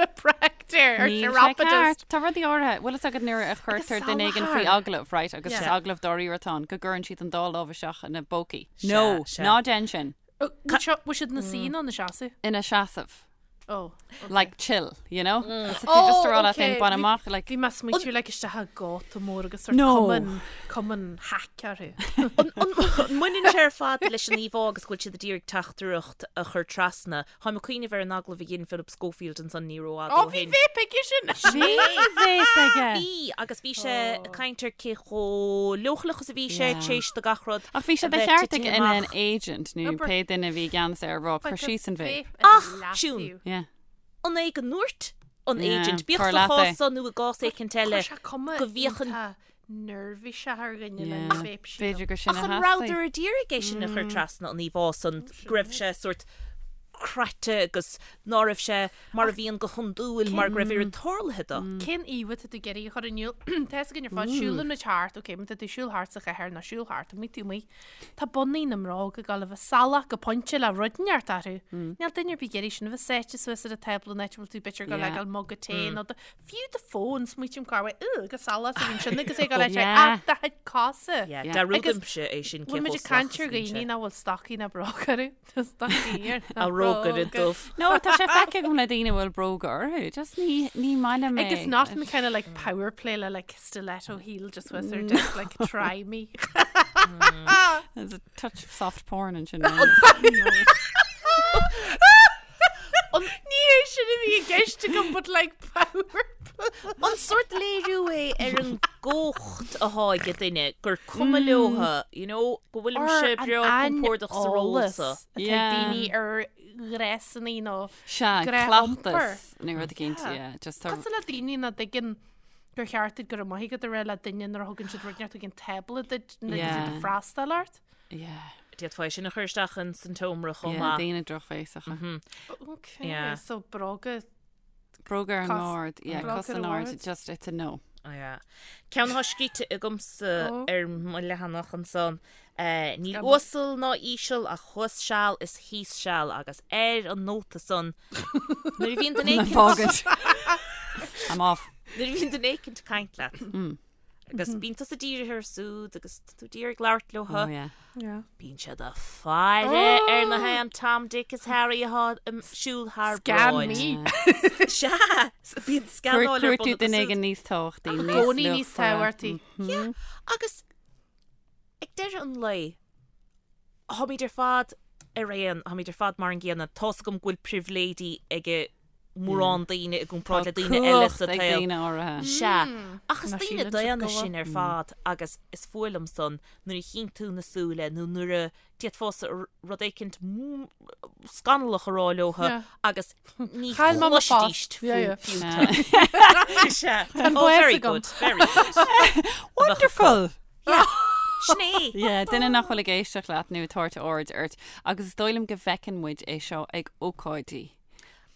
chiropractor or Níl sé chiropodist. ceart. Tá rudaí áirithe, bhfuil fhios agat nuair a chuirtear duine éigin faoi salachar. agallamh, right, agus is Yeah. agallamh dáiríre atá ann, go gcuireann siad an dá lámh isteach ina bpócaí. Sea, No, sea. ná déan sin. Bhfuil siad ina suí nó ina seasamh? Ina seasamh. Oh, okay. Like chill, you know? Mm. So Oh, just a rá leat okay. féin, bain Bhí- amach, like, Bhí mé ag smaoitiú like isteach i gcóta mór agus sort No. cumann, cumann hack orthu. An mbaineann sé ar fad leis an íomhá agus go bhfuil siad ag iarraidh teachtaireacht a chur trasna? Táim ag cuimhneamh ar an agallamh a dhein Philip Schofield ansan ní rófhada Ó, ó bhí shin. vape aige sin! Bhí vape aige. Bhí, agus bhí sé ag caint ar cé chomh leochaileach is a bhí sé Yeah. tar éis do gach rud Ach bhí sé a de bheith cheart titithe ag an amach. agent nó Obair. pé duine a bhí i gceannas air a rá cur síos an vape. Ach, Siún. Yeah. An é go ndúirt an Yeah, agent, bíodh cur sa leat é. chás so nó i gcás éicint eile, Chuir sé cuma go bhféachann- iontach neirbhíseach ar dhuine Yeah. lena vape sílim. B'fhéidir gur sin Ach a an theastaigh. rabhadar a d'iarraidh é sin a chur trasna an íomhá san go raibh sé sórt craite agus ná raibh sé mar a bhíonn go hiondúil mar go raibh oiread tarlaithe dó. Cén íomhá atá tú ag iarraidh a chur in iúl? Tá fhios againn ar fad, siúlann muid thart, ok, má tá tú ag siúl thart sa chathair nó siúl thart amuigh taobh amuigh, Tá bonnaí na mbróg ag dul a bheith salach go pointe le rud inteacht orthu. Níl duine ar bith ag iarraidh sin a bheith sáite suas ar an tábla an áit a bhfuil tú b'fhéidir ag dul le Yeah. gabháil muga tae nó do, fiú do fón, smaoitím cá bhfuil, ugh, chomh salach is a bhíonn sin agus é ag dul le Yeah. ach do chuid cosa. Yeah, Yeah. Dearúdaimse é sin cé Bhfuil muid chomh ag caint salach ar is a bhíonn dhaoine sé. nach bhfuil stocaí ná bróga orthu. Tá stocaí ar na A rógaire bróga. dubh. No, tá sé feicthe agam le daoine a bhfuil bróga orthu. Just ní, ní maith liom é. Agus not in kind of like power play le like stiletto heel just was or just like try me. There's a touch of soft porn ansin. Ní hé sin a bhí i gceist agam but like power play. An sórt léiriú é ar an gcumhacht atá ag duine gur cuma leotha, you know, go bhfuilimse breá compordach sa ról so. Atá Yeah. daoine ar ghnéasanna nó Sea, Gnáth-iompar. cleachtas nó rud éicint, Yeah. yeah, just tá Cosúil le daoine nach dtuigeann gur cheart duit go raibh maith agat a rá le duine nuair a thugann siad rud inteacht chuig an tábla duit nuair atá siad Yeah. ag freastal ort. Yeah. D'fhéadfá é sin a chur isteach in san tseomra chomh Yeah, maith. daoine drochbhéasacha. Okay, Yeah. so bróga Bróga ar an Cos- mbord, yeah, bróga cos ar in an airde, mbord. just it's a no. Oh, yeah. Ceann atá scríte agamsa Oh. ar mo leathanach ansan. Eh, Níl Gan- uasal ná íseal ach thuas seal is thíos seal agus ar an nóta san nuair a bhíonn duine éicint Fágaint. I'm off. nuair a bhíonn duine éicint ag caint leat. Agus bíonn tusa dírithe orthu siúd agus tá tú díreach ag labhairt leo. Oh, yeah. Yeah. Bíonn siad ag faire ar na haon Tom, Dick is Harry atá ag siúl thar Scan bráid. me. Sea, bíonn scanáil ar Cuir bun tú acu duine siúd. éigin níos tábhachtaí, I níos gcónaí níos luachmhaire. tábhachtaí. Yeah, agus ag deireadh an lae, táimid ar fad ar aon, táimid ar fad mar an gcéanna. Tá's agam go bhfuil pribhléidí ag mórán daoine i gcomparáid le daoine eile sa Cumhacht ag tsaol. daoine áirithe. Sea, ach is Ná daoine síleann siad daonna go bhfuil. sinn ar fad agus is fuath liom san nuair a chíonn tú na súile nó nuair a d'fhéadfása rud éicint scannalach a rá leotha Yeah. agus ní Chaill mé mo chloisfidís phost. Yeah, yeah. fiú tú. Sea. Tá an Oh, bás very agam. good, very good. Wonderful! Yeah. Sin é. Yeah, duine nach bhfuil ag éisteacht leat nó ag tabhairt aird ort agus is dóigh liom go bhfeiceann muid é seo ag ócáidí.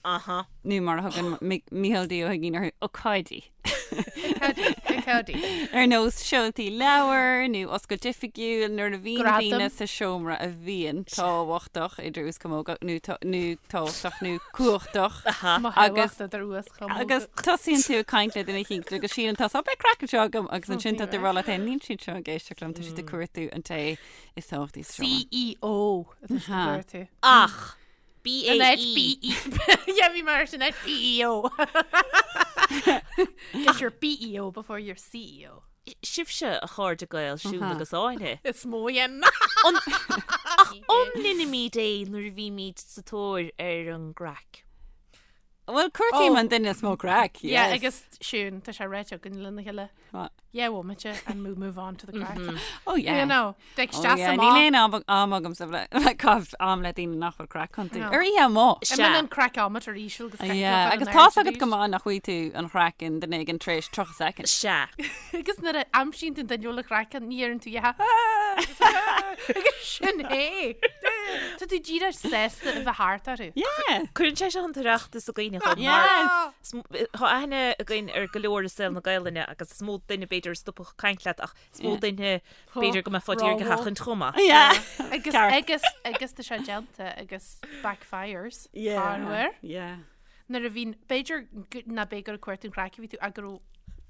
Aha. Nó mar a thugann Mícheál D. Ó hUiginn orthu, ócáidí. Ócáidí. Ar nós seoltaí leabhar nó oscailt oifigiúil nuair a bhíonn Gradam. daoine sa seomra a bhíonn tábhachtach idir uaschamóga nó nó tábhachtach nó cumhachtach. Mo Agus- thábhacht idir uaschamóga. Agus tosaíonn tú ag caint le duine éicint agus síleann tusa, "Ó, beidh craic anseo agam agus ansin tá tú ag rá leat féin, níl siad seo ag éisteacht liom, tá siad ag cuartú an té is tábhachtaí sa seomra. CEO atá siad ag cuartú. Ach, An áit BAE. BE. Yeah, bhí mar sin áit BEO. Get your BEO before your CEO. Sibhse a chairde Gael, Siún agus Áine. Is mó dhéan. Ach an ndeinimid é nuair a bhímid sa tóir ar an gcraic? Bhuel, cuartaím Oh. an duine is mó craic, Yeah, yes. agus Siún, tá sé ráite againn lena chéile. What? Yeah, bhomaite and move move on to the craic. Oh yeah. You know, ag Oh, isteach yeah. amach. Níl aon am am agamsa le le caitheamh am le daoine nach bhfuil craic iontu. No. Ar oíche amuigh. An mbíonn an craiceometer íseal agus craic Yeah, agus tá's agat go maith nach bhfaighidh tú an chraic in duine éigin tar éis 30 soicind. Sea. Agus nuair a aimsíonn tú an duine a bhfuil an chraic ann, ní deireann tú yeah. Agus sin é. Tá tú díreach sásta a bheith thart orthu. Yeah. Cuireann sé seo an tOireachtas i gcuimhne dhom mar Yes. Tá aithne againn ar go leor i saol na Gaelainne agus is mó duine b'fhéidir. b'fhéidir a stopfadh ag caint leat ach is mó duine b'fhéidir go mbeifeá d'iarraidh a sheachaint chomh maith. Yeah. Agus Ceart. agus agus tá sé déanta agus backfires. Yeah. Corruair. Yeah. Nuair a bhíonn, b'fhéidir ná b'é gur ag cuartú an chraic a bhí tú ach go raibh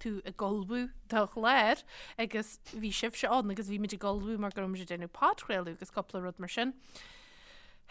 tú ag ullmhú do chlár agus bhí sibhse ann agus bhí muid ag ullmhú mar go raibh muid ag déanamh podchraoladh agus cúpla rud mar sin.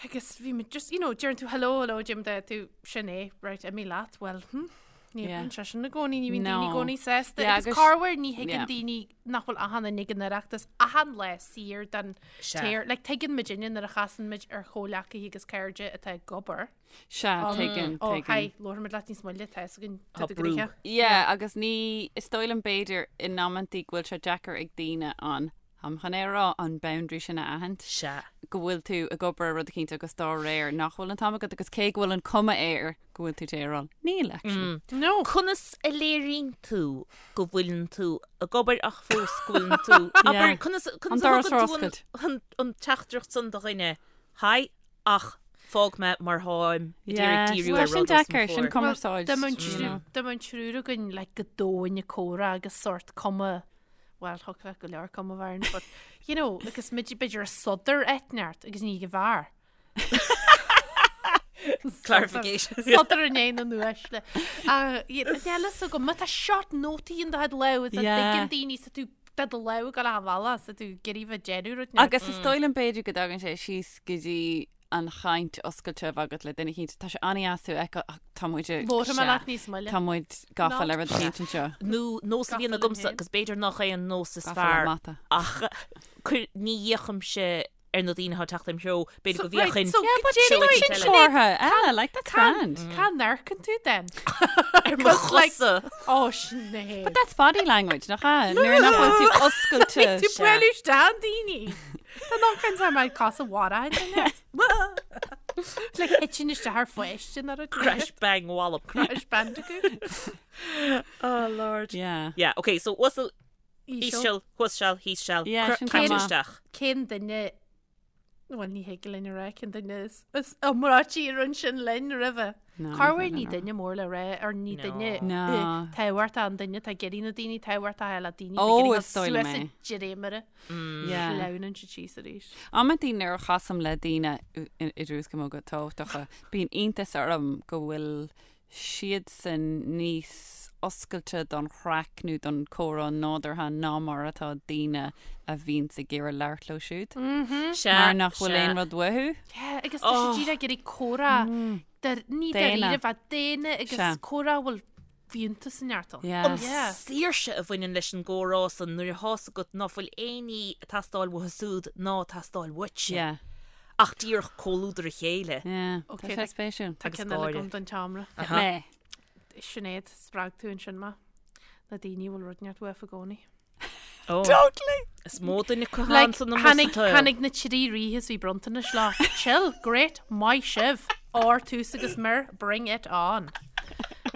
Agus bhí muid just, you know, deireann tú hello, hello, Jim, de tú sin é, right, imigh leat, well, hm, ní Yeah. bhíonn sé sin i gcónaí, ní bhíonn daoine i No. gcónaí sásta. Yeah, Agus agus- corruair ní thuigeann yeah. daoine nach bhfuil achan duine ag an Oireachtas achan lá saor den Sea. téir. Like, tuigeann muidinne nuair a chasann muid ar chomhleacaithe agus cairde atá ag obair. Sea, tuigeann, Ó, tuigeann. hi, labharfaimid leat níos moille, tá fhios againn Tá tá do brú. ghnoithe. Yeah, agus ní, is dóigh liom b'fhéidir in amantaí go bhfuil sé deacair ag daoine an, táim chun é a rá, an boundary sin a aithint. Sea. Go bhfuil tú ag obair ar rud eicínt agus dá réir nach bhfuil an t-am agat agus cé go bhfuil an cuma air go bhfuil tú ag rá, níl actually. No. Conas a léiríonn tú go bhfuileann tú ag obair ach fós go bhfuileann tú, abair, Yeah. conas, An conas a doras thugann ar tú an, oscailt. an, an teachtaireacht san do dhuine, hi, ach fág mé mar tháim ag Yeah, iarraidh díriú tá ar sin rud os mo deacair, sin chomhair. cumarsáid. Dá mbeadh an you triúr- know. dá mbeadh an triúr againn like, go domhain ag comhrá agus sort cuma well, thiocfadh leat go leor cuma a bheith orainn, but you know, agus muid b'fhéidir ag sodar eitneart agus ní ag an bhfear. Clarification. Sodar i ndiaidh na n-uaisle. Níl fhios agam, má tá short nótaí in do chuid lámh, is a Yeah. dtuigeann daoine sa tú tá do lámh ag dul achan bhealach, sa tú ag iarraidh bheith ag déanamh rud inteacht. Agus is dóigh liom b'fhéidir go dtagann sé síos go dtí an chaint oscailte a bheith agat le duine eicínt. Tá sé an-dheas tú a fheiceáil ach tá muid ag- Labharfaidh mé Sea. leat níos moille. Tá muid gafa Ná. le rud eicínt anseo. Nó nós a bhíonn Gafa linn agamsa féin. agus b'fhéidir nach é an nós is Gafa le fearr mata. ach cuir- ní fhéachaimse ar na daoine atá ag teacht im threo, b'fhéidir go So, right, bhféachfainn so Yeah, but Sin sin sin sin Sinéad, comhartha eile, like that's grand. Cá n-amharcann tú then? ar mo Because, like, chosa. Ó, Sinéad. But that's body language, nach ea? Nuair nach bhfuil tú oscailte. Tú bualadh isteach in daoine. Tá nach an tá mar cos a bhara Le hitsin isteach ar pháiste ná rud. Crash bang wallop. Crash bandicoot. Oh lord. Yeah. Yeah, okay, so uasal Íseal. íseal, thuas-seal, thíos-seal, Yeah, sin caite chomh maith. isteach. Cén duine Bhuel ní thig linn a rá cén duine is is iomráití a rinne sin linn roimhe. No, Corruair ní ní féidir duine mór le rá ar ní No. duine No. tábhachtach an duine tá ag iarraidh na daoine tábhachtacha le daoine Ó, tá ag iarraidh is dóigh liom suas é. i dréimire Yeah. sleamhnann siad síos arís. Amantaí nuair a chasaim le daoine idir is go mór go tábhachtacha, bíonn iontas orm go bhfuil siadsan níos oscailte don chraic nó don chomhrá nádúrtha ná mar atá daoine a bhíonns ag iarraidh labhairt leo siúd. Sea, Mar nach bhfuil sea. aon rud uathu. Yeah, agus tá siad díreach ag iarraidh comhrá ní Daonna. dáiríre bheith daonna agus Sea. comhrá a bhfuil fiúntas inteacht ann. Yeah. An Yeah. saoirse a bhaineann leis an gcomhrá san nuair atá's agat ná fuil aon ní ag teastáil uathu súd ná ag teastáil uaitse. Yeah. Ach díreach comhluadar a chéile. Yeah. Ok, Tá sé spéisiúil. Tá Agus ceann eile gáire. agam don tseomra. Mé. Sinéad, spreag tú ansin mé. Na daoine a bhfuil rud inteacht uafa i gcónaí. Oh. Totally. Is mó duine acu Like, ann san amuigh tháinig, sa tsaol. tháinig na trí ríthe is bhí bronntanais leo. Chill, great, maith sibh. Ór, tús agus mire, bring it on.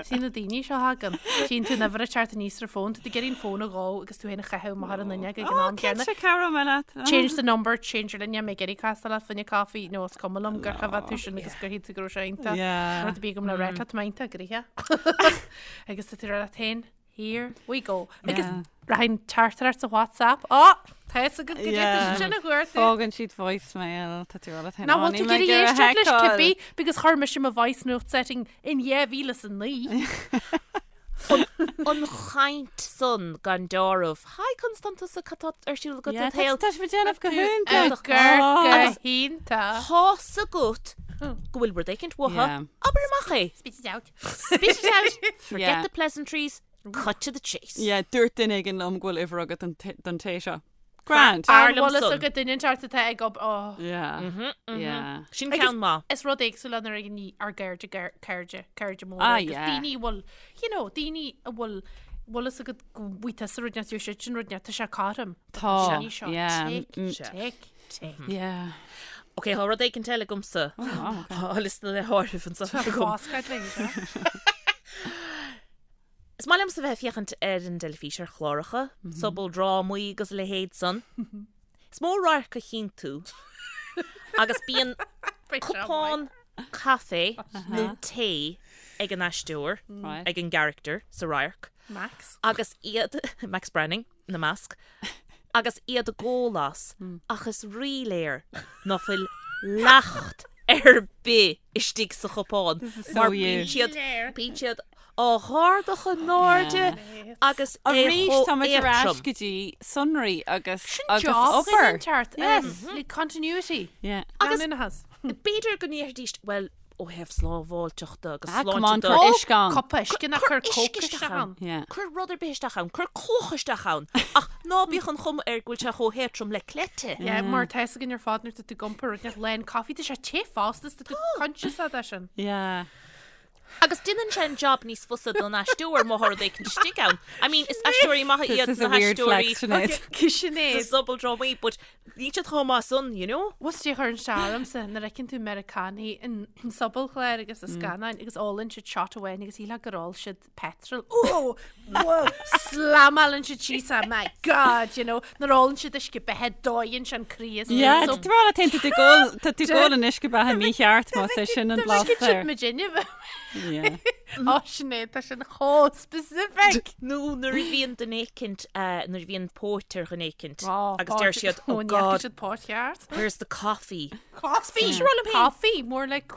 Sí na daoine seo thagann. Tchíonn tú an uimhir ag teacht aníos ar fón, tá tú ag iarraidh an fón a dhó agus tú féin a chaitheamh amach ar an fhuinneog ag an am céanna. Cinnte cabhróidh mé leat. Change the number, change your linne, mé ag iarraidh castáil leat fá choinne caife nó is cuma liom gur choimhéad tú sin agus gur shíl tú go raibh sé iontach. Yeah. Rud a bhí agam le rá leat, tá iontach, gnoitheach. Agus tá tú ag rá leat féin, Here we go. Agus Yeah. rachainn teachtaireacht sa WhatsApp. Á, tá fhios agat go Yeah. dtéann sin a chuartú. Fágann siad voicemail, tá tú ag rá leat féin. Ná "Ó, bhfuil níl tú mé ag ag iarraidh iarraidh éisteacht leis a fheiceáil." cibé because chuir mise mo voice note setting in 2009. An chaint san gan deáramh. Hi conas tánn tusa cad tá ar siúl agat Yeah, i do shaol. Tá sé déanamh go hiontach. Gur Oh. go hiontach. Tá's agat go bhfuil rud éicint uathu. Yeah. Abair amach é. Spit it out. Spit it out. Forget Yeah. the pleasantries. Cut to the chase. Yeah, dúirt duine éigin liom go bhfuil uimhir agat don t- don té seo. Grand. Fearr An liom bhfuil fhios san. agat duine inteacht atá ag ob oh. Yeah. Yeah. Sin Agus- ceann maith. Is rud éagsúil nuair a ní ár gcairde gar- cairde cairde móra Ah, agus yeah. daoine a bhfuil you know daoine a bhfuil bhfuil fhios agat go bhfaighidh tusa rud inteacht siad sin rud inteacht tá sé cothrom. Tá, Daoine seo yeah, tic mm. tic tic. Yeah. Ok, tá rud éicint eile agamsa. Oh, wow, okay. Tá liosta le háireamh anseo agam. Fáscad le seo. Is maith liomsa bheith ag féachaint ar an dteilifís ar chláracha, sobaldrámaí agus a leithéid san. Is mó radharc a chíonn tú agus bíonn cupán caife nó tae ag an aisteoir, ag an gcarachtar sa radharc. Max. Agus iad, Max Branning ina measc, agus iad ag ól as, ach is ríléir ná fuil leacht ar bith istigh sa chupán. Mar bíonn siad, bíonn siad á dh'ardach in airde agus é Arís chomh tá muid ar ais éadtrom. go dtí sonraí agus Sin agus job obair. ceart. Yes. Like continuity. Yeah. Agus- Leanúnachas. B'fhéidir go ndéarfaidís, bhuel, ó thaobh slábháilteachta agus Ah, come on, sláinte de. cuir uisce ann. Cupa uisce ná Cuir cuir uisce Coke isteach isteach ann. ann. Yeah. Cuir rud ar bith isteach ann, cuir cloch isteach ann, ach ná bíodh an chuma air go bhfuil sé chomh héadtrom le cleite. Yeah, mar tá fhios againn ar fad nuair tá tú ag iompar rud inteacht lán coffee, tá sé te fosta, is tá tú conscious de sin. Yeah. Agus déanann sé an job níos fusa don aisteoir má tá rud éicint istigh ann. I mean, is aisteoirí maithe This iad is a na weird haisteoirí flex, Sinéad. Okay, Sinéad. sa sobaldrámaí, but níl siad chomh maith san, you know? What's dé chuireann sé ormsa nuair a fheiceann tú Meiriceánaigh in sobalchláir agus i scannáin agus ólann siad shot amháin agus shílfeá gur ól siad petrol. Oh! Whoa! Slamálann siad síos é, my God, you know, nuair a ólann siad uisce beatha dóigheann sé an croí as Yeah, so tá tú tá tú ag ól tá tú ag ól an uisce beatha mícheart más é sin an blas Sin air. muid inniu. Yeah. Ó Sinéad, tá sin chomh specific. Nó nuair a bhíonn duine éicint, eh, nuair a bhíonn póit ar dhuine éicint Oh, agus deir siad, oh Ó, God, siad póit cheart. where's the coffee? Coffee. Bhí sé rá liom féin. Coffee, more like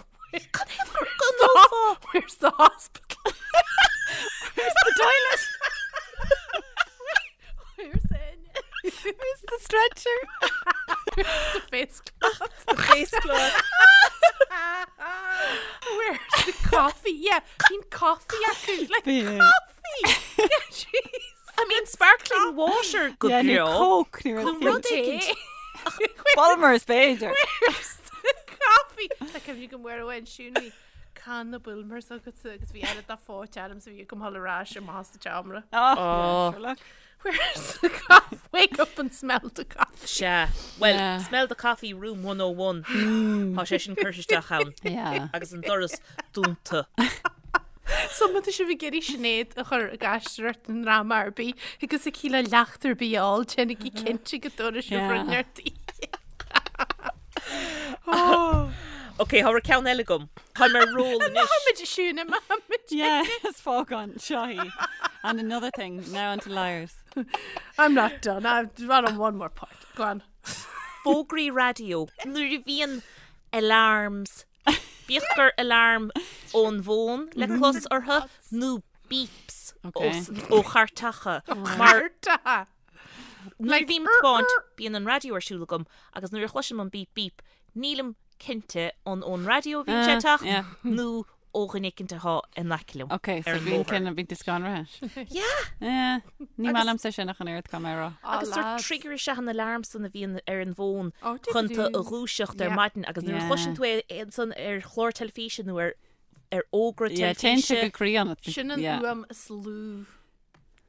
Cad é gur go n-ólfá? Where's the hospital? Where's the toilet? Where's it? Where's the stretcher? Where's the face cloth? The face cloth. Where's the coffee? Yeah, bíonn coffee acu. Like Bíonn. coffee. Yeah, jeez. I mean, sparkling water go Yeah, nó breá. Coke nó Nó rud rud éicint. éicint. Bulmers b'fhéidir. Where's the coffee? Tá cuimhne agam uair amháin Siún bhí canna Bulmers agatsa agus bhí oiread de phóit orm so bhí agam dhul ar ais amach sa tseomra. Oh, sure look. Where's the coffee? Wake up and smell the coffee. Sea. Well, Yeah. smell the coffee room 101. Tá sé sin curtha isteach ann. Yeah. Agus an doras dúnta. So má tá sibh ag iarraidh Sinéad a chur ag aisteoireacht i ndráma ar bith agus aici le leacht ar bith a fháil, déanaigí cinnte go dtabharfaidh sibh Yeah. rud inteacht di. Ok, tá ceann eile agam. Táim ar roll anois. Táimid siún táimid. Yeah, is fágann seo í. And another thing, now onto liars. I'm not done. I've run on one more part. Go on. Fógraí raidió. Nuair a bhíonn alarms. Bíodh gur alarm ón bhfón le clos orthu nó beeps Okay. ó chairteacha. Mar Marta. nuair a bhím ag tiomáint, bíonn an raidió ar siúl agam agus nuair a chloisim an beep beep, nílim cinnte an ón raidió a bhíonn sé Ah, ag teacht yeah. nó ó dhuine éicint atá in aice liom. Ok, so ar an bíonn bhóthar. cinn a bíonn tú scanraithe. Yeah! Yeah, ní maith liomsa sin ach an oiread caithfidh mé a rá. Agus sort trigger is ea an alarm san a bhíonn ar an bhfón Oh, chun tú a do-do-do. dhúiseacht ar Yeah. maidin agus nuair a Yeah. chloiseann tú é ansan ar chlár teilifíse nó ar ar fhógra Yeah, téann sé teilifíse. go croí ionat. Sin an Yeah. fhuaim is lú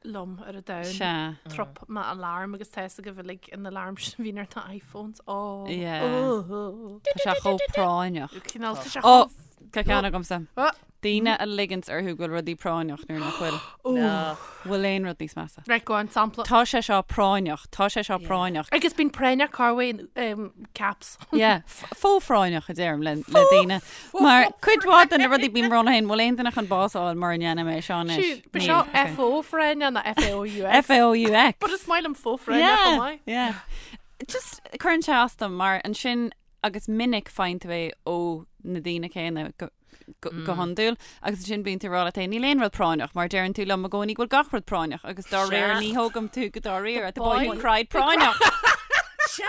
liom ar an domhan. Sea. Trup mo alarm agus tá fhios agaibh uilig an alarm sin a bhíonn ar na iPhones. Oh. Yeah. Oh. Tá sé chomh práinneach. Cineál tá sé Oh, chomh tá ceann agamsa. Oh. Daoine a ligeanns orthu go bhfuil rudaí práinneach nuair nach bhfuil. No. Bhfuil aon rud níos measa. Right, go on, sampla. Tá sé seo práinneach, tá sé seo práinneach. Agus bíonn práinneach Carway in um, caps. Yeah, fó-phráinneach a deirim le le daoine. Mar cuid mhaith de na rudaí bím ag rá liom féin, bhfuil aon duine chun bás a fháil mura ndéanaim é seo anois? Siúd, ba Níl, seo okay. FO phráinneach ná FAOUX. FAOUX. But is maith liom fó-phráinneach chomh Yeah, maith. yeah. Just cuireann sé as dom mar ansin agus minic faigheann tú é ó na daoine céanna go go go hiondúil agus ansin bíonn tú ag rá leat féin níl aon rud práinneach mar deireann tú liom i gcónaí go bhfuil gach rud práinneach agus dá réir Sea. ní thógaim tú go dáiríre the boy who boy. cried práinneach. Sea.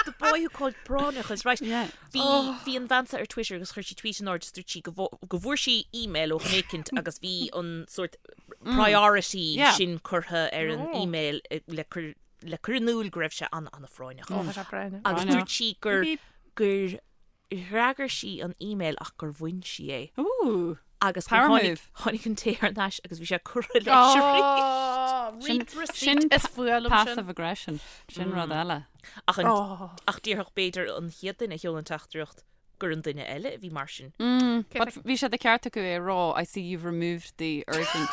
The boy who called práinneach is right. Yeah. Bhí bhí an bhean seo ar Twitter agus chuir sí tweet in airde is dúirt sí go bhfu- go bhfuair sí email ó dhuine éicint agus bhí an sort priority Yeah. sin curtha ar an email eh, le cur le cur in iúl go raibh sé an an-phráinneach. Ó, tá sé práinneach. Agus Práinneach. dúirt sí gur gur fhreagair sí an email ach gur bhain sí é. Ooh. Agus gur Power tháinig move. tháinig an té thar n-ais agus bhí sé curtha leis arís. Oh, Sin read receipt sin is fuath liom sin. passive aggression. Sin rud eile. Ach an Oh. ach déarfadh b'fhéidir an chéad duine a sheol an teachtaireacht. gur an duine eile a bhí mar sin. But bhí sé de cheart acu é a rá, I see you've removed the urgent.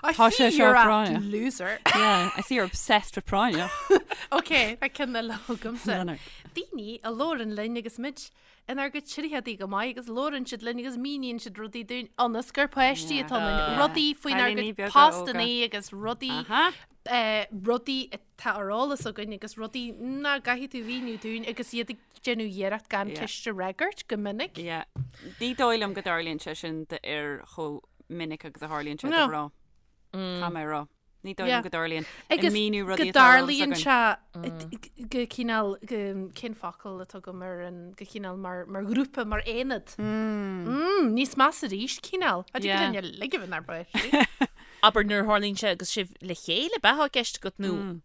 I Tá see sé seo you're a práinneach. loser. Yeah, I see you're obsessed with práinneach. Ok, tá ceann eile agamsa. No, no. Daoine a labhrann linn agus muid inár gcuid tríochadaí go maith agus labhrann siad linn agus míníonn siad rudaí dúinn ionas gur páistí Yeah. atá ionainn. Yeah. Rudaí faoinár Cailíní gcuid beaga postanna óga. agus rudaí Aha. eh, rudaí atá ar eolas againn agus rudaí nach gcaithfidh tú mhíniú dúinn agus iad ag déanamh iarracht gan Yeah. ceist a fhreagairt go minic. Yeah. Ní dóigh liom go dtarlaíonn sé sin d'fhir chomh minic agus a tharlaíonn sé do No. mhná. Caithfidh mé a rá. Ní dóigh liom Yeah. go dtarlaíonn. Agus míniú go rudaí atá ar eolas dtarlaíonn againn. sé go cineál go cén focal atá agam ar an go cineál mar mar ghrúpa mar aonad. Mm, níos measa arís cineál. A Yeah. dtig linn ligean ar bith. Abair nuair a tharlaíonn sé agus sibh le chéile ab ea atá i gceist agat nó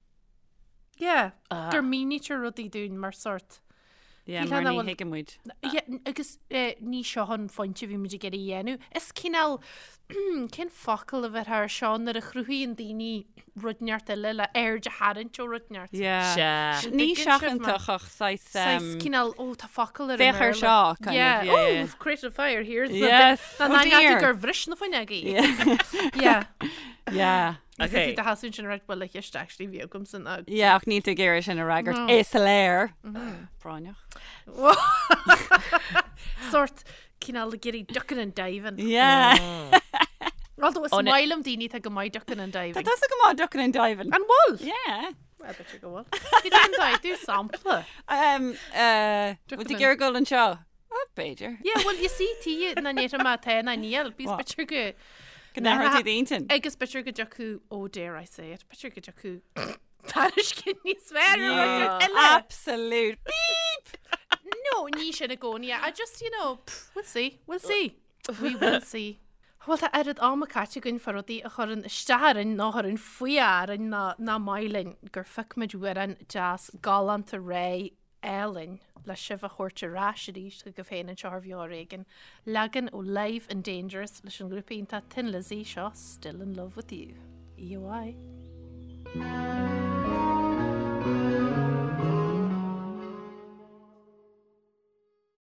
Yeah, gur mínítear rudaí dúinn mar sort. Yeah, Níl mar ann a ní bhfuil- thuigeann muid. Yeah, agus eh, ní seo an phointe a bhí muid ag iarraidh a dhéanamh. Is cineál cén focal a bheith ar seo nuair a chruthaíonn daoine rud inteacht eile le aird a tharraingt ó rud inteacht. Yeah. Sea. Ní Tuigeann sibh mé. seachantach ach saghas, Saghas um, cineál ó tá focal ar an Féach ar mBéarla. seo, kind of, Yeah. yeah, Oh, yeah. we've created a fire here. Yes. Na Oh na dear. gur bhris na fuinneogaí. Yeah. Yeah. Yeah. Okay. Tá hasún sin right well cheist actually bhí agam san ag. Yeah, ach níl tú ag iarraidh sin a fhreagairt. No. Is léir. Práinneach. Sort cineál ag iarraidh ducking and diving. Yeah. Although is Oh, na- maith liom daoine atá go maith ducking and diving. Tá tusa go maith ducking and diving. An bhfuil? Yeah. Well, b'fhéidir go bhfuil. Bhí an dóigh, do sampla. Um, uh, Ducking Bhfuil tú and- ag iarraidh dul anseo? Oh, b'fhéidir. Yeah, well, you see, tí na néir má tá na níl, bís What? b'fhéidir go Go n-athróidh tú d'intinn. Agus b'fhéidir go dtiocfadh, oh dare I say it, b'fhéidir go dtiocfadh tairiscint níos fearr ar rud eile. Absolute beep! No, ní sin i gcónaí. I just, you know, pff, we'll see, we'll see. We will see. Bhuel, tá oiread ama caite againn fá rudaí a chuireann isteach orainn nó a chuireann fuath orainn ná nach maith linn gur phioc muid amhrán deas galánta réidh álainn le sibh a thabhairt ar ais arís chugaibh féin anseo ar Bheo Ar Éigean. Leagan ó Live and Dangerous leis an ghrúpa iontach Thin Lizzy seo Still in Love With You. EOI.